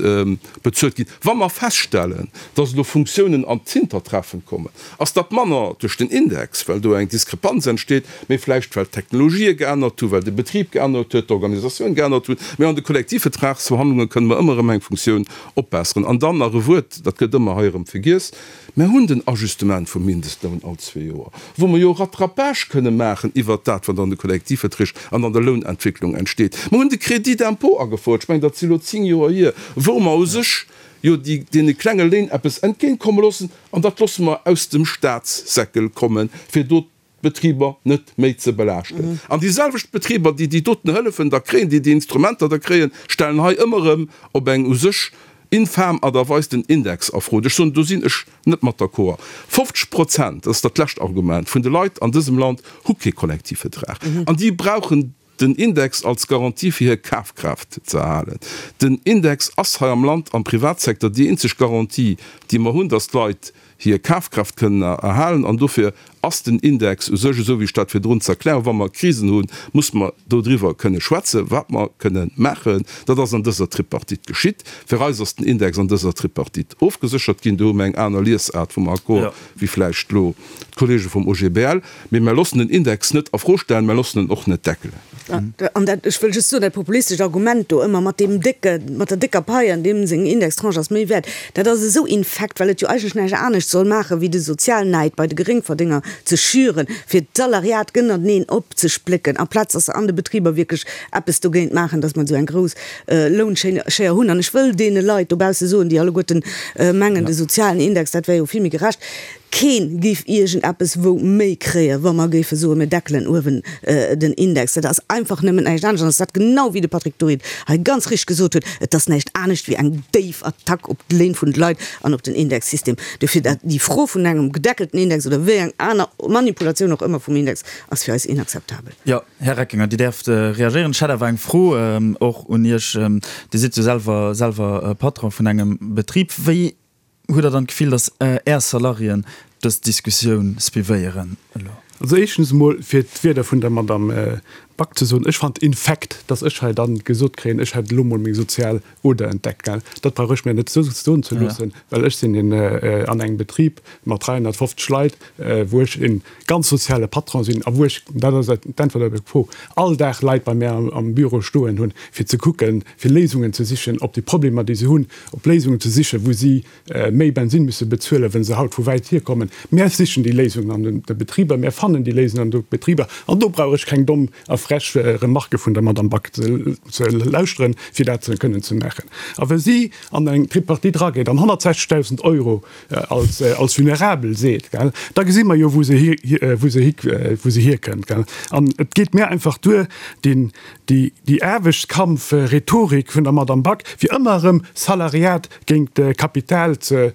bezuelt ginn. Wa mer feststellen, dass elo Funktiounen an d'Hintertreffen kommen, ass dat manner duerch den Index, well do eng Diskrepanz entsteet, mee vläicht well d'Technologië geännert hunn, well de Betrib geännert huet, d'Organisatioun geännert hunn. Mee an de Kollektivvertragsverhandlunge kënne mer ëmmer erëm eng Funktioun opbesseren. An dann nach e Wuert, dat gëtt ëmmer hei erëm vergiess, Mer hunn den Ajustement vum Mindestloun all zwee Joer, wou mer jo Rattrapage kënne maachen iwwert dat, wat an de Kollektivverträg an an der Lounentwécklung entsteet. Mer hunn de Crédit d'impôt agefouert, ech mengen, dat si elo zéng Joer hier, wou mer u sech jo déi deene klenge Léin eppes entgéintkomme loossen, an dat loosse mer aus dem Statssäckel kommen, fir do d'Betriber net méi ze belaaschten. An déi selwecht Betriber, déi déi doten Hëllefen da kréien, déi déi Instrumenter da kréien, stellen hei ëmmer erëm op eng u sech infam Art a Weis den Index a Fro. Ech soen, do sinn ech net mat d'accord. 50 Prozent, dat ass dat lescht Argument, vun de Leit an dësem Land hu kee Kollektivvertrag an déi brauchen den Index als Garantie fir hir Kafkraaft ze erhalen. Den Index ass hei am Land am Privatsecteur déi eenzeg Garantie, déi mer hunn, dass d'Leit hir Kafkraaft kënnen erhalen. An dofir ass den Index u sech, esou wéi ech dat virdrun ze erklären, wa mer Krisen hunn, muss mer dodriwwer kënne schwätzen, wat mer kënne maachen. Dat ass an dëser Tripartite geschitt. Fir eis ass den Index an dëser Tripartite ofgeséchert ginn. Do hu mer eng aner Liesaart vum Accord wéi vläicht elo d'Kollege vum OGBL, mee mer loossen den Index net a Fro stellen, mer loossen en och net deckelen. An dat, ech wëll just soen, dat populistescht Argument do ëmmer mat deem décke, mat der décker Pai an deem seng Indextranche ass méi wäert, dat ass esou infekt, well et jo eigentlech näischt anescht soll maachen, wéi de Sozialnäid bei de Geréngverdénger ze schüren, fir d'Salariat gënnerteneen opzesplécken, amplaz dass se an de Betriber wierklech eppes dogéint maachen, dass mer esou eng grouss Lounschéier hunn. An ech wëll deene Leit dobausse soen, déi alleguerten mengen, de sozialen Index, dat wär jo vill méi gerecht, Keen géif iergend eppes wou méi kréien, wa mer géife soen, mir deckelen uewen den Index. Dat ass einfach nëmmen näischt anescht. An ass dat genau wéi de Patrick Dury et hei ganz richteg gesot huet, et ass näischt anescht wéi eng déif Attack op d'Léin vun de Leit an op den Indexsystem. Dofir dat, déi Fro vun engem gedeckelten Index oder wéi eng aner Manipulatioun och ëmmer vum Index ass fir eis inakzeptabel. Jo, Här Reckinger, Dir däerft reagéieren. Ech hätt awer eng Fro och un Iech. Dir sidd jo selwer selwer Patron vun engem Betrib. Wéi Hutt Der dann d'Gefill, datt Är Salariéen dës Diskussioun suivéieren elo? Also éischtens emol, fir d'Wierder vun der Madame. Back ze soen, ech fand infekt, dass ech hei dann gesot kréien, ech hätt elo mol meng sozial Oder entdeckt, gell. Dat brauch ech mir net soen ze loossen, well ech sinn een an engem Betrib mat 350 Leit, wou ech e ganz soziale Patron sinn a wou ech, dat ass d'Äntwert op Är Fro, all Dag Leit bei mär am Büro stoen hunn, fir ze kucken, fir Léisungen ze sichen op déi Problemer, déi se hunn, op Léisungen ze sichen, wou si méi Bensinn musse bezuelen, wa se haut vu wäit hierkommen. Mär sichen déi Léisungen an de Betriber, mär fannen déi Léisungen an de Betriber an do brauch ech keng domm a frech Remarquë vun der Madame Back ze lauschteren, fir dat kënnen ze maachen. A wa si an eng Tripartite erageet an 160.000 Euro als vulnerabel seet, da gesi mer jo, wou se hierkënnt. An et geet mir einfach duer, déi Aarbechtskampf-Rhetorik vun der Madame Back, fir ëmmer erëm Salariat géint d'Kapital ze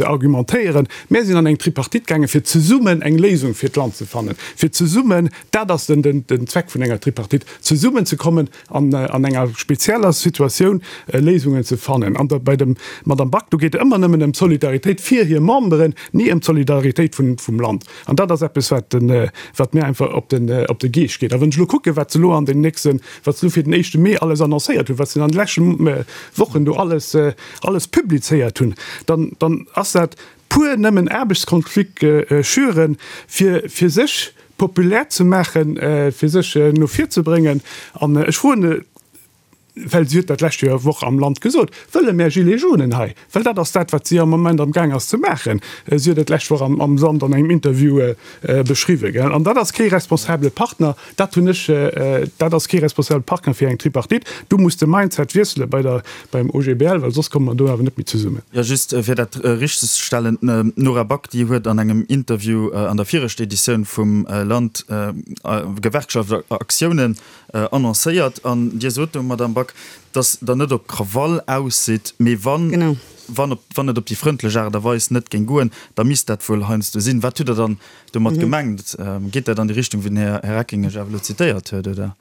argumentéieren. Mär sinn an eng Tripartite gaangen, fir zesummen eng Léisung fir d'Land ze fannen, fir zesummen, dat ass den Zweck vun enger Tripartite, zesummen ze kommen an an enger spezieller Situatioun Léisungen ze fannen. An bei der Madame Back, do geet et ëmmer nëmmen ëm d'Solidaritéit fir hir Memberen, ni ëm d'Solidaritéit vum Land. An dat ass eppes, wat wat mir einfach op den op de Geescht geet. A wann ech elo kucken, wat se elo an den nächsten, wat se elo fir den éischte Mee alles annoncéiert hunn, wat se an de leschte Wochen do alles alles publizéiert hunn, dann dann ass dat pur nëmmen Aarbechtskonflikt schüren, fir fir sech populär ze maachen, fir sech no vir ze bréngen. An ech froen well si huet dat d'lescht Joer Woch am Land gesot, wëlle mär Gilets jaunen hei, well dat ass dat, wat si am Moment am Gaang ass ze maachen. Si huet et d'lescht Woch am Land an engem Interview beschriwwen. An dat ass kee responsabele Partner, dat hunn ech, dat ass kee responsabele Partner fir eng Tripartite. Do muss de Mindset wiessele bei der, beim OGBL, well soss komme mer do awer net méi zesummen. Jo, just fir dat richtegzestellen, D'Nora Back, déi huet an engem Interview an der viregter Editioun vum Land Gewerkschaftsaktiounen annoncéiert. An Dir sot do, Madamm Back, dass Der net op Krawall aus sidd, mee wann, wann op, wann et op déi frëndlech Aart a Weis net géing goen, da misst dat wuel heiansdo sinn. Wat hutt Der dann domat gemengt? Geet dat an déi Richtung, wéi den Här Recking Iech awer elo zitéiert huet, oder?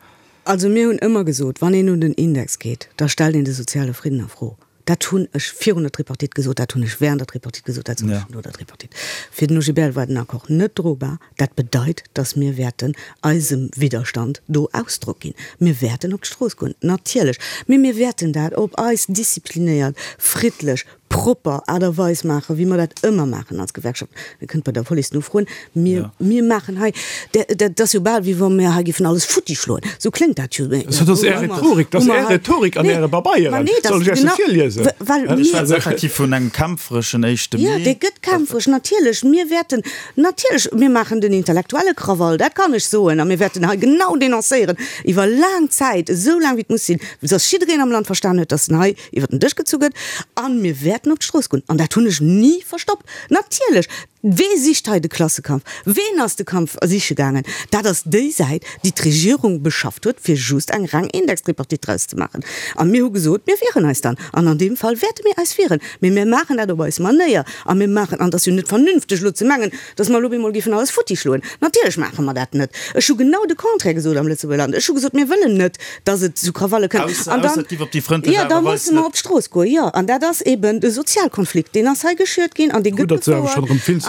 Also mir hunn ëmmer gesot, wann een un den Index geet, da stellt een de soziale Fridden a Fro. Dat hunn ech virun der Tripartite gesot, dat hunn ech während der Tripartite gesot, dat soen ech no der Tripartite. Fir den OGBL war den Accord net drobar. Dat bedeit, datt mir wäerten eisem Widderstand do Ausdrock ginn. Mir wäerten op d'Strooss goen, natierlech, mee mir wäerten dat op eis disziplinéiert, friddlech, propper Aart a Weis maachen, wéi mer dat ëmmer maachen als Gewerkschaft. Dir kënnt bei der Police nofroen. Mir, mir maachen hei, dat ass jo bal, wéi wa mir hei géifen alles futti schloen. Esou kléngt dat jo. Dat ass Är Rhetorik, dat ass Är Rhetorik an Äre Pabeieren. Soll ech Iech se virliesen? Ech schwätze effektiv vun engem kämpfereschen éischte Mee. Jo, dee gëtt kämpferesch, natierlech. Mir wäerten, natierlech, mir maachen den intellektuelle Krawall, dat kann ech soen. A mir wäerten hei genau denoncéieren, iwwer laang Zäit, esou laang wéi et muss sinn, dass jiddereen am Land verstan huet, dass en hei iwwer den Dësch gezu gëtt. A mir wäerten op d'Strooss goen. An dat hunn ech ni verstoppt. Natierlech! Wee sicht hei de Klassekampf? Ween ass de Kampf siche gaangen? Dat ass déi Säit, déi d'Regierung beschafft huet, fir just eng reng Indextripartite draus ze maachen. A mir hu gesot, mir wieren eis dann. An an deem Fall wäerte mir eis wieren. Mee mir maachen dat op eis Manéier. A mir maachen, an et ass jo net vernünfteg elo ze mengen, dass mer elo op eemol géifen alles futti schloen. Natierlech maache mer dat net. Ech hu genau de Contraire gesot am Lëtzebuerger Land. Ech hu gesot, mir wëllen net, dass et zu Krawalle kënnt. An dann, jo, da musse mer op d'Strooss goen, jo. An dat ass eben de Sozialkonflikt, deen ass hei geschürt ginn an dee gëtt gefouert.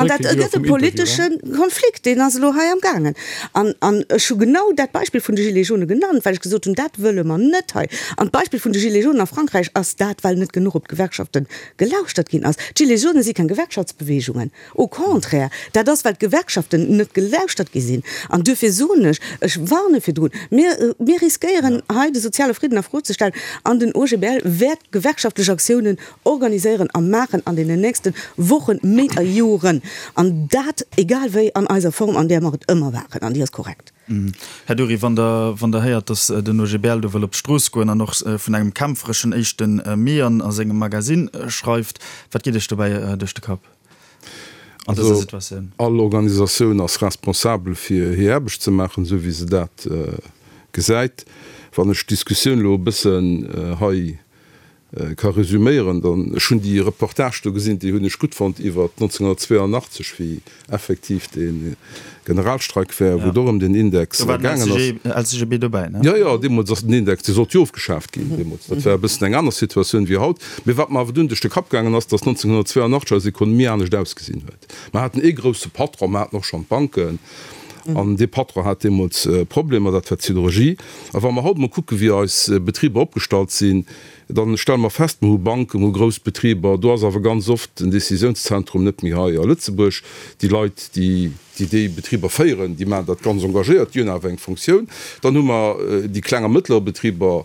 An dat gëtt e politesche Konflikt, deen ass elo hei amgaangen. An, an ech hu genau dat Beispill vun de Gilets jaunes genannt, well ech gesot hunn, dat wëlle mer net hei. An d'Beispill vun de Gilets jaunes a Frankräich ass dat, well net genuch op d'Gewerkschafte gelauschtert ginn ass. D'Gilets jaunes si keng Gewerkschaftsbewegungen. Au contraire, dat ass, well d'Gewerkschaften net gelauschtert gi sinn. An duerfir soen ech, ech warne virdrun, mir, mir riskéieren hei de soziale Fridden a Fro ze stellen an den OGBL wäert gewerkschaftlech Aktiounen organiséieren a maachen an deenen nächste Wochen, Méint a Joren. An dat egal wéi an eiser Form, an där mer et ëmmer waren, an déi ass korrekt. Här Dury, wann Der, wann Der héiert, datt den OGBL do wëll op d'Strooss goen an och vun engem kämpfereschen éischte Mee an a sengem Magasinn schreift, wat geet Iech dobäi duerch de Kapp an dëser Situatioun? All Organisatioun ass responsabel fir hir Aarbecht ze maachen, esou wéi se dat gesäit. Wann ech d'Diskussioun elo e bëssen hei ka resüméieren, dann, ech hunn déi Reportage do gesinn, déi hunn ech gutt fonnt iwwer 1982, wéi effektiv dee Generalstreik war, wou et och ëm den Index gaangen ass. Do war den LCGB dobäi, ne? Jo, jo, deemools ass den Index, dee sollt jo ofgeschaaft ginn deemools. Dat war e bëssen eng aner Situatioun wéi haut. Mee wat mer awer dunn duerch de Kapp gaangen ass, datt 1982 eis Ekonomie anescht ausgesinn huet. Mer haten ee grousse Patron, mer haten och schonn d'Banken. An dee Patron hat deemools Problemer, dat war d'Siderurgie. A wa mer haut emol kucken, wéi eis Betriber opgestallt sinn, da stelle mer fest, mer hu Banken, mer hu grouss Betriber, do ass awer ganz oft den Décisiounszentrum net méi hei a Lëtzebuerg. Déi Leit, déi déi Betriber féieren, déi maachen dat ganz engagéiert, déi hunn awer eng Fonctioun. Dann hu mer déi kleng a mëttler Betriber,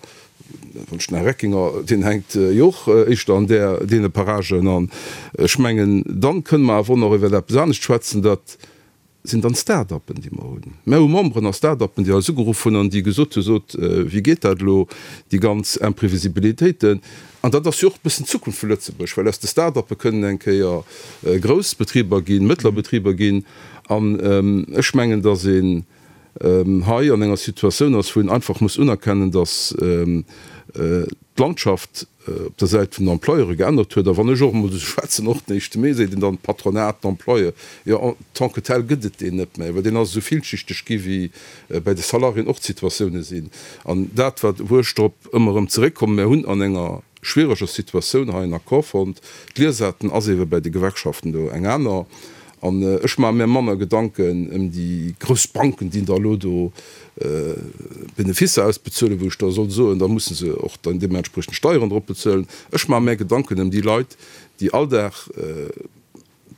wann ech den Här Reckinger, deen hänkt jo och éischter an där, deene Paragen. An ech mengen, dann kënne mer awer och nach iwwer eppes anescht schwätzen, dat sinn dann Start-uppen, déi mer hunn. Mer hu Memberen a Start-uppen, déi eis ugeruff hunn an déi gesot hunn, Sot, wéi geet dat elo, déi ganz Imprevisibilitéiten? An dat ass jo och e bëssen d'Zukunft vu Lëtzebuerg, well aus de Start-uppe kënnen eng Kéier grouss Betriber ginn, mëttler Betriber ginn. An ech mengen, datt een hei an enger Situatioun ass, wou een einfach muss unerkennen, datt d'Landschaft op der Säit vun den Employeure geännert huet. A wann ech och emol esou schwätzen, och den éischte Mee, seet een dann Patronat, d'Employeur, jo, en tant que tel gëtt et deen net méi, well deen ass esou villschichteg gi wéi bäi de Salariéen och d'Situatioune sinn. An dat, wat, wou ech drop ëmmer erëm zeréckkommen, Mir hunn an enger schwiereger Situatioun hei en Accord fonnt. D'Liesaarten ass eebe bäi de Gewerkschaften do eng aner. An ech maache mir manner Gedanken ëm déi grouss Banken, déi da elo do Beneficer ausbezuelen, wou ech da soll soen, da musse se och dann deementspriechend Steieren drop bezuelen. Ech maache mär Gedanken ëm déi Leit, déi all Dag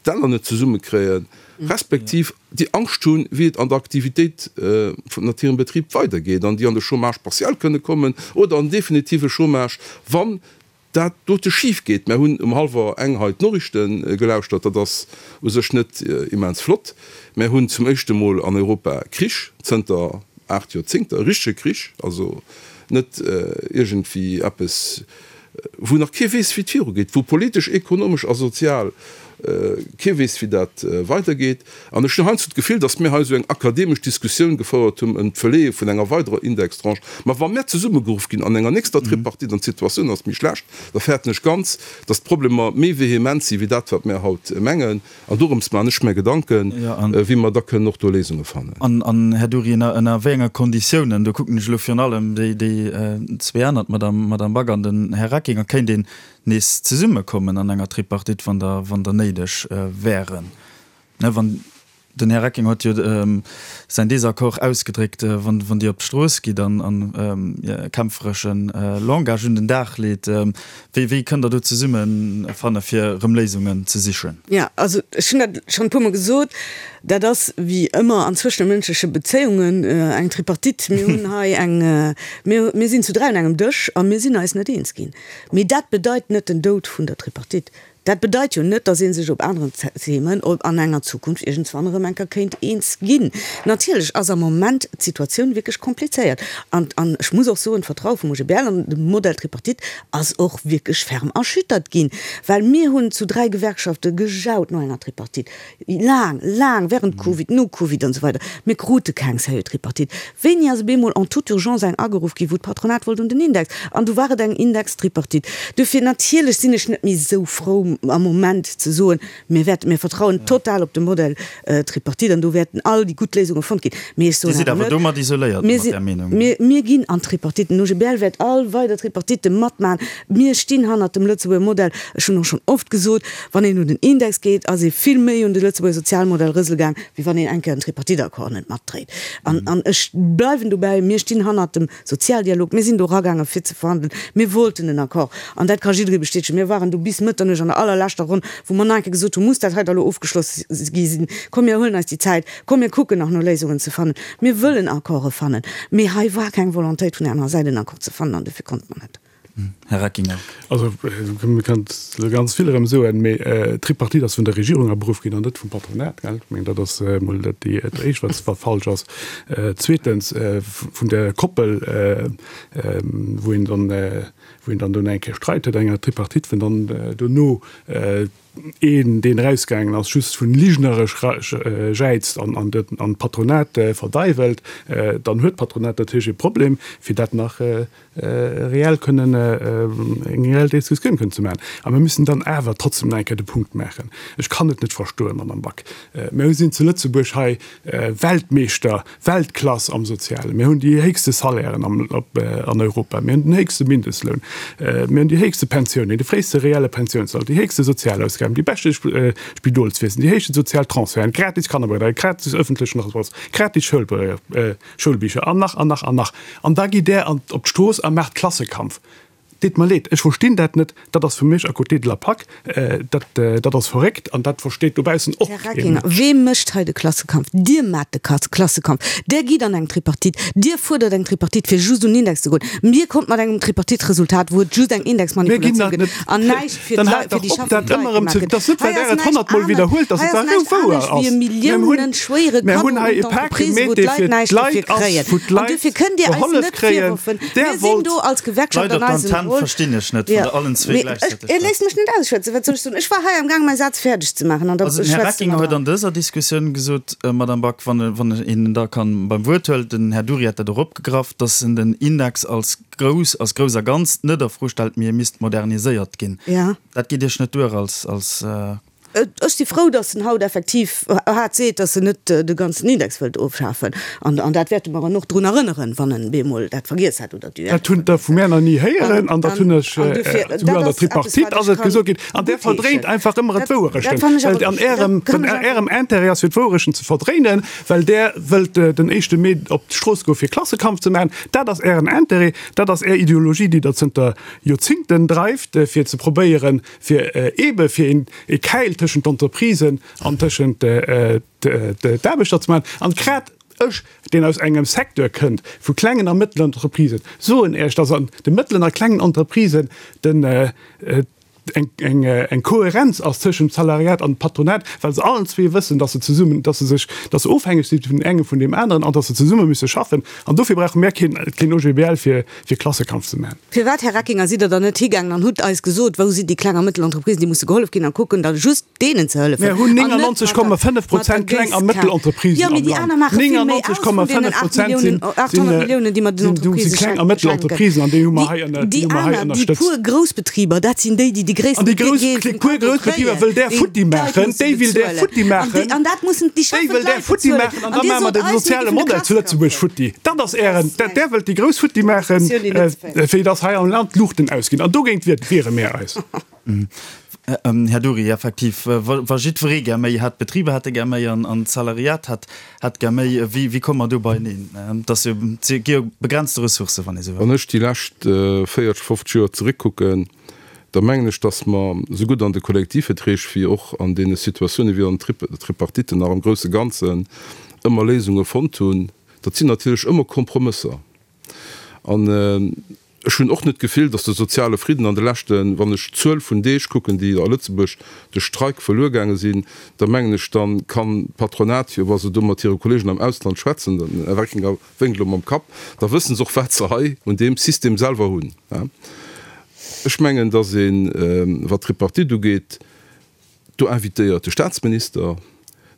d'Enner net zesummekréien, respektiv déi Angscht hunn, wéi et an der Aktivitéit vun hirem Betrib weidergeet an déi an de Chômage partiel kënne kommen oder an definitive Chômage, wann dat dote schif geet. Mär hunn um hallwer eng hei d'Noriichte gelauschtert, dat ass u sech net immens flott. Mär hunn zum éischte Mol an Europa Krich zënter 8 Joerzéngter, e richtege Krich, also net iergendwéi eppes, wou nach kee weess, wéi et virugeet, wou politesch, ekonomesch a sozial kee weess, wéi dat weidergeet. An ech hunn heiansdo d'Gefill, datt mir hei esou eng akademesch Diskussioun gefouert hunn ëm d'Verleeë vun enger weiderer Indextranche. Mä wa mir zesummegeruff ginn an enger nächster Tripartite an d'Situatioun ass méi schlecht, da fäerten ech ganz, datt d'Problemer méi vehement si wéi dat, wat mir haut mengen. An dorëms maachen ech mir Gedanken, wéi mer da kënnen och do Léisunge fannen. An, Här Dury, ënner wéi enge Konditiounen, do kucken ech elo virun allem déi zwee aner, d'Madame Back an den Här Reckinger, kéint een nees zesummekommen an enger Tripartite, wann der néideg wären? Ne, wann, den Här Recking huet jo säin Désaccord ausgedréckt, wann, wann Dir op d'Strooss gitt an, an kämpferesche Langage un den Dag leet, wéi, wéi kënnt Der do zesummefanne fir erëm Léisungen ze sichen? Jo, also ech hunn dat schonn e puermol gesot, dat ass wéi ëmmer an zwëschemënschleche Bezéiungen eng Tripartite. Mir hunn hei eng, mir, mir sinn zu 3 un engem Dësch a mir sinn eis net eens ginn. Mee dat bedeit net den Doud vun der Tripartite. Dat bedeit jo net, datt ee sech op aneren Themen an enger Zukunft iergendswann erëm eng Kéier kéint eens ginn. Natierlech ass am Moment d'Situatioun wierklech komplizéiert. An, an ech muss och soen, d'Vertraue vum OGBL an de Modell Tripartite ass och wierklech ferm erschüttert ginn, well mir hunn zu 3 Gewerkschafte gejaut no enger Tripartite. Laang, laang, während Covid, no Covid an esou weider. Mir krute keng sérieux Tripartite. Wéini ass op eemol en toute urgence eng ageruff ginn, wou d'Patronat wollt un den Index? An du war et eng Indextripartite. Duerfir, natierlech sinn ech net méi esou frou am Moment ze soen, mir wäerten, mir vertrauen total op de Modell Tripartite an do wäerten all déi gutt Léisunge fonnt ginn. Mee ech soen awer net, domat isoléiert mat där Meenung. Mir, mir ginn an d'Tripartite. Den OGBL wäert all weider Tripartitte matmachen. Mir stinn hannert dem Lëtzebuerger Modell. Ech hunn och schonn oft gesot, Wann een un den Index geet, ass ee vill méi un de Lëtzebuerger Sozialmodell rësele gaang, wéi wann een eng Kéier en Tripartite-Accord net matdréit. An, an ech bleiwen dobäi, Mir stinn hannert dem Sozialdialog. Mir sinn do eragaange fir ze verhandelen. Mir wollten en Accord. An dat ka jidderee bestätegen. Mir waren do bis Mëtternuecht an der allerleschter Ronn, wou mer nach eng Kéier gesot hunn, Muss dat hei da elo ofgeschloss gi sinn? Komm, mir huelen eis déi Zäit. Komm, mir kucken nach no Léisungen ze fannen. Mir wëllen Accorde fannen. Mee hei war keng Volontéit vun där anerer Säit, en Accord ze fannen, an dofir konnte mer net. Här Reckinger. Also, mir kënnen elo ganz vill erëm soen, mee d'Tripartite ass vun der Regierung aberuff ginn an net vum Patronat, gell? Ech mengen, dat ass emol dat Éischt, wat falsch ass. Zweetens, vun der Koppel, wou een dann, wou een dann dono eng Kéier Streit huet an enger Tripartite, wou dann dono een, deen erausgaangen ass, just vun ligneresch jäizt an d'Patronat verdeiwelt, dann huet d'Patronat natierlech e Problem, fir dat nach reell kënnen, eng reell Diskussioun kënnen ze maachen. A mir müssen dann awer trotzdem nach eng Kéier de Punkt maachen, ech kann et net verstoen, Madame Back, mir sinn zu Lëtzebuerg hei Weltmeeschter, Weltklass am Sozialen, mir hunn déi héchste Salairen an Europa, mir hunn den héchste Mindestloun. hunn. Mir hunn déi héchste Pensiounen, de fréiste reelle Pensiounsalter, déi héchste Sozialausgaben, déi beschte Spidolswiesen, déi héchste sozial Transferten, gratis Kannerbetreuung, gratis ëffentlechen Transport, gratis Schoulbicher an nach an nach an nach. An da gitt Der op d'Strooss a maacht Klassekampf. Deet mer leed, ech verstinn dat net. Dat ass fir mech à côté de la plaque. Dat, dat ass verréckt an dat versteet dobaussen och Här kee Reckinger, Mënsch. wee mécht hei de Klassekampf? Dir maacht de Klassekampf. Der gitt an eng Tripartite. Dir fuerdert eng Tripartite, fir just un den Index ze goen. Mir kommt mat engem Tripartite-Resultat, wou et just eng Mir ginn Indexmanipulatioun dat gëtt net. an näischt fir Dann d'Leit, haalt fir déi dach op, dat schaffend Leit ëmmer erëm gemaach ze. gëtt. Dat ass net, Hei well Der ass et näischt honnertmol anescht, widderhuelt, dass hei et ass da näischt wouer anescht wéi ass. e Mir hunn, milliounenschwéiere mir Kaddo hunn un hei e Pak d'Entreprisen, wou gemeet, dee d'Leit fir näischt dofir d'Leit ass, kréien. wou An d'Leit duerfir kënnt Dir eis gehollef net kréien. virwerfen, Der mir sinn wollt. do als Gewerkschaft Leit an op eisem d'Antenn Rôle. verstinn ech net, wann Ja, der allen zwee mee ech, gläichzäiteg Dir léisst mech net ausschwätzen. Wat soll ech soen? Ech war hei amgaang mäi Saz fäerdeg ze maachen an da Also den Här schwätzt de Reckinger mer huet dran. an dëser Diskussioun gesot, Madame Back, wann wann een en da kann beim Wuert huelt, den Här Dury hat dat och opgegraff, datt en den Index als grouss, als grouss a Ganzt net a Fro stellt, mee e misst moderniséiert ginn. Ja. Dat geet Iech net duer als, als. Ech si frou, datt en haut effektiv haart seet, datt en net de ganzen Index wëllt ofschafen. An, an dat wäerte mer en och drun erënneren, wann en bemol dat vergiess hat oder d'UEL. Dat hunn der vu mär nach ni héieren an dat hunn ech, An dofir, souguer dat an der ass eppes, Tripartite wat ass ech et kann gesot ginn. An där verdréint guttheeschen. einfach ëmmer Dat, d'Wouerechten, dat fannen ech well awer, an dat Ärem, kann an ech awer. Ärem Intérêt ass fir d'Wouerechten ze verdréinen, well där wëllt den éischte Mee op d'Strooss goe fir Klassekampf ze maachen. Dat ass Ären Intérêt, dat ass Är Ideologie, déi Der zënter Joerzingten dreift, fir ze probéieren, fir eebe fir een e Käil tëschent d'Entreprisen an tëschent d'Aarbechter ze maachen. An grad ech, deen aus engem Secteur kënnt vu klengen a mëttelen Entreprisen, soen Iech, dass an de mëttelen a klengen Entreprisen den eng eng Kohärenz ass tëschent dem Salariat an dem Patronat, well se allen zwee wëssen, dass se zesummen, dass se sech, dass se ofhängeg si vun engem vun deem aneren an dass se zesumme müsse schaffen. An dofir brauche mär keen keen OGBL fir fir Klassekampf ze maachen. Firwat, Här Reckinger, sidd Der dann net higaangen an hutt eis gesot, wou sinn déi kleng a mëttel Entreprisen, déi musse gehollef ginn, a kucken da just deenen ze hëllefen Mär hunn an net mat der, 99,5 mat der Prozent kleng a Géisskan? mëttel Entreprisen Jo, mee am déi Land. aner maache vill méi aus vun deenen 8 99,5 Prozent Milliounen, sinn, 800 Milliounen, déi mer den sinn, sinn Entreprisë kleng a mëttel schenken. Entreprisen an déi hu mer Déi, hei ënner, déi déi hu mer hei aner, déi ënnerstëtzt. puer Groussbetriber, dat sinn déi, déi de An gréissten déi grouss, Deel déi vum puer Kaddo Groussbetriber kréien, wëll där déi futti d'Leit maachen, musse déi will där bezuelen. futti An déi, maachen, an dat mussen déi déi schaffend wëll där Leit futti bezuelen. maachen an An da Dir maache mer sot de eis, mir soziale géifen de Modell zu Klassekampf Lëtzebuerg féieren. futti. Dat ass Dat Ären, ass dat, eng där wëllt déi grouss futti maachen, Diskussioun, déi net ze féieren. fir dass hei am Land d'Luuchten ausginn. An dogéint wiere mär eis. Här Dury, effektiv, wa jiddweree gär méi hätt, d'Betriber hätte gär méi an d'Salariat hätt gär méi, wéi komme mer do beieneen? Et ass jo, et gi jo begrenzte Ressourcen, wann ee sou wëll. Wann ech déi lescht 40, 50 Joer zeréckkucken, da mengen ech, datt mer sougutt an de Kollektivverträg wéi och an deene Situatiounen, wéi an den Tripartiten nach am grousse Ganzen ëmmer Léisunge fonnt hunn. Dat sinn natierlech ëmmer Kompromësser. An ech hunn och net d'Gefill, datt de soziale Fridden an de leschten, wann ech d'Zuel vun Deeg kucken, déi a Lëtzebuerg duerch Streik verluer gaange sinn, da mengen ech, da kann d'Patronat jo, wa se do mat hire Kollegen am Ausland schwätzen, den Här Reckinger wénkt elo mam Kapp, da wësse se och, wat se hei un deem System selwer hunn. Ech mengen, datt een, wat d'Tripartite ugeet, Do invitéiert de Staatsminister,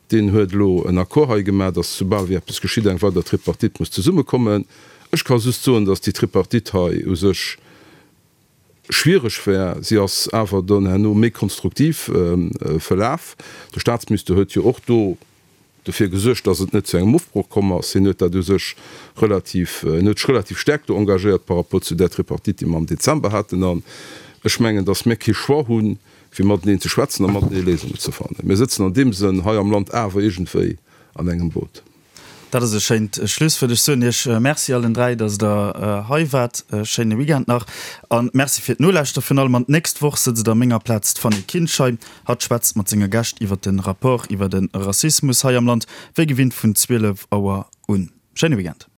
deen huet elo en Accord hei gemaach, datt soubal wéi eppes geschitt, eng weider Tripartite muss zesummekommen. Ech ka just soen, datt déi Tripartite hei u sech schwiereg war. Si ass awer dann herno méi konstruktiv verlaf. De Staatsminister huet jo och do dofir gesuergt, dass et net zu engem Ofbroch komm ass. Hien huet dat u sech relativ, en huet sech relativ staark do engagéiert par rapport zu där Tripartite, déi mer am Dezember haten. An ech mengen, dass mir kee Choix hunn, wéi mateneen ze schwätzen a matenee Léisungen ze fannen. Mir sëtzen an deem Sënn hei am Land awer iergendwéi an engem Boot. Dat ass e schéint Schlusswuert. Ech soen Iech Merci allen 3, dass Der hei waart. E schéine Weekend nach a Merci fir d'Nolauschter virun allem. An d'nächst Woch sëtzt a menger Plaz d'Fanny Kinschein. Hatt schwätzt mat senge Gäscht iwwer de Rapport iwwer de Rassismus hei am Land, wéi gewinnt vun 12 Auer un. Schéine Weekend.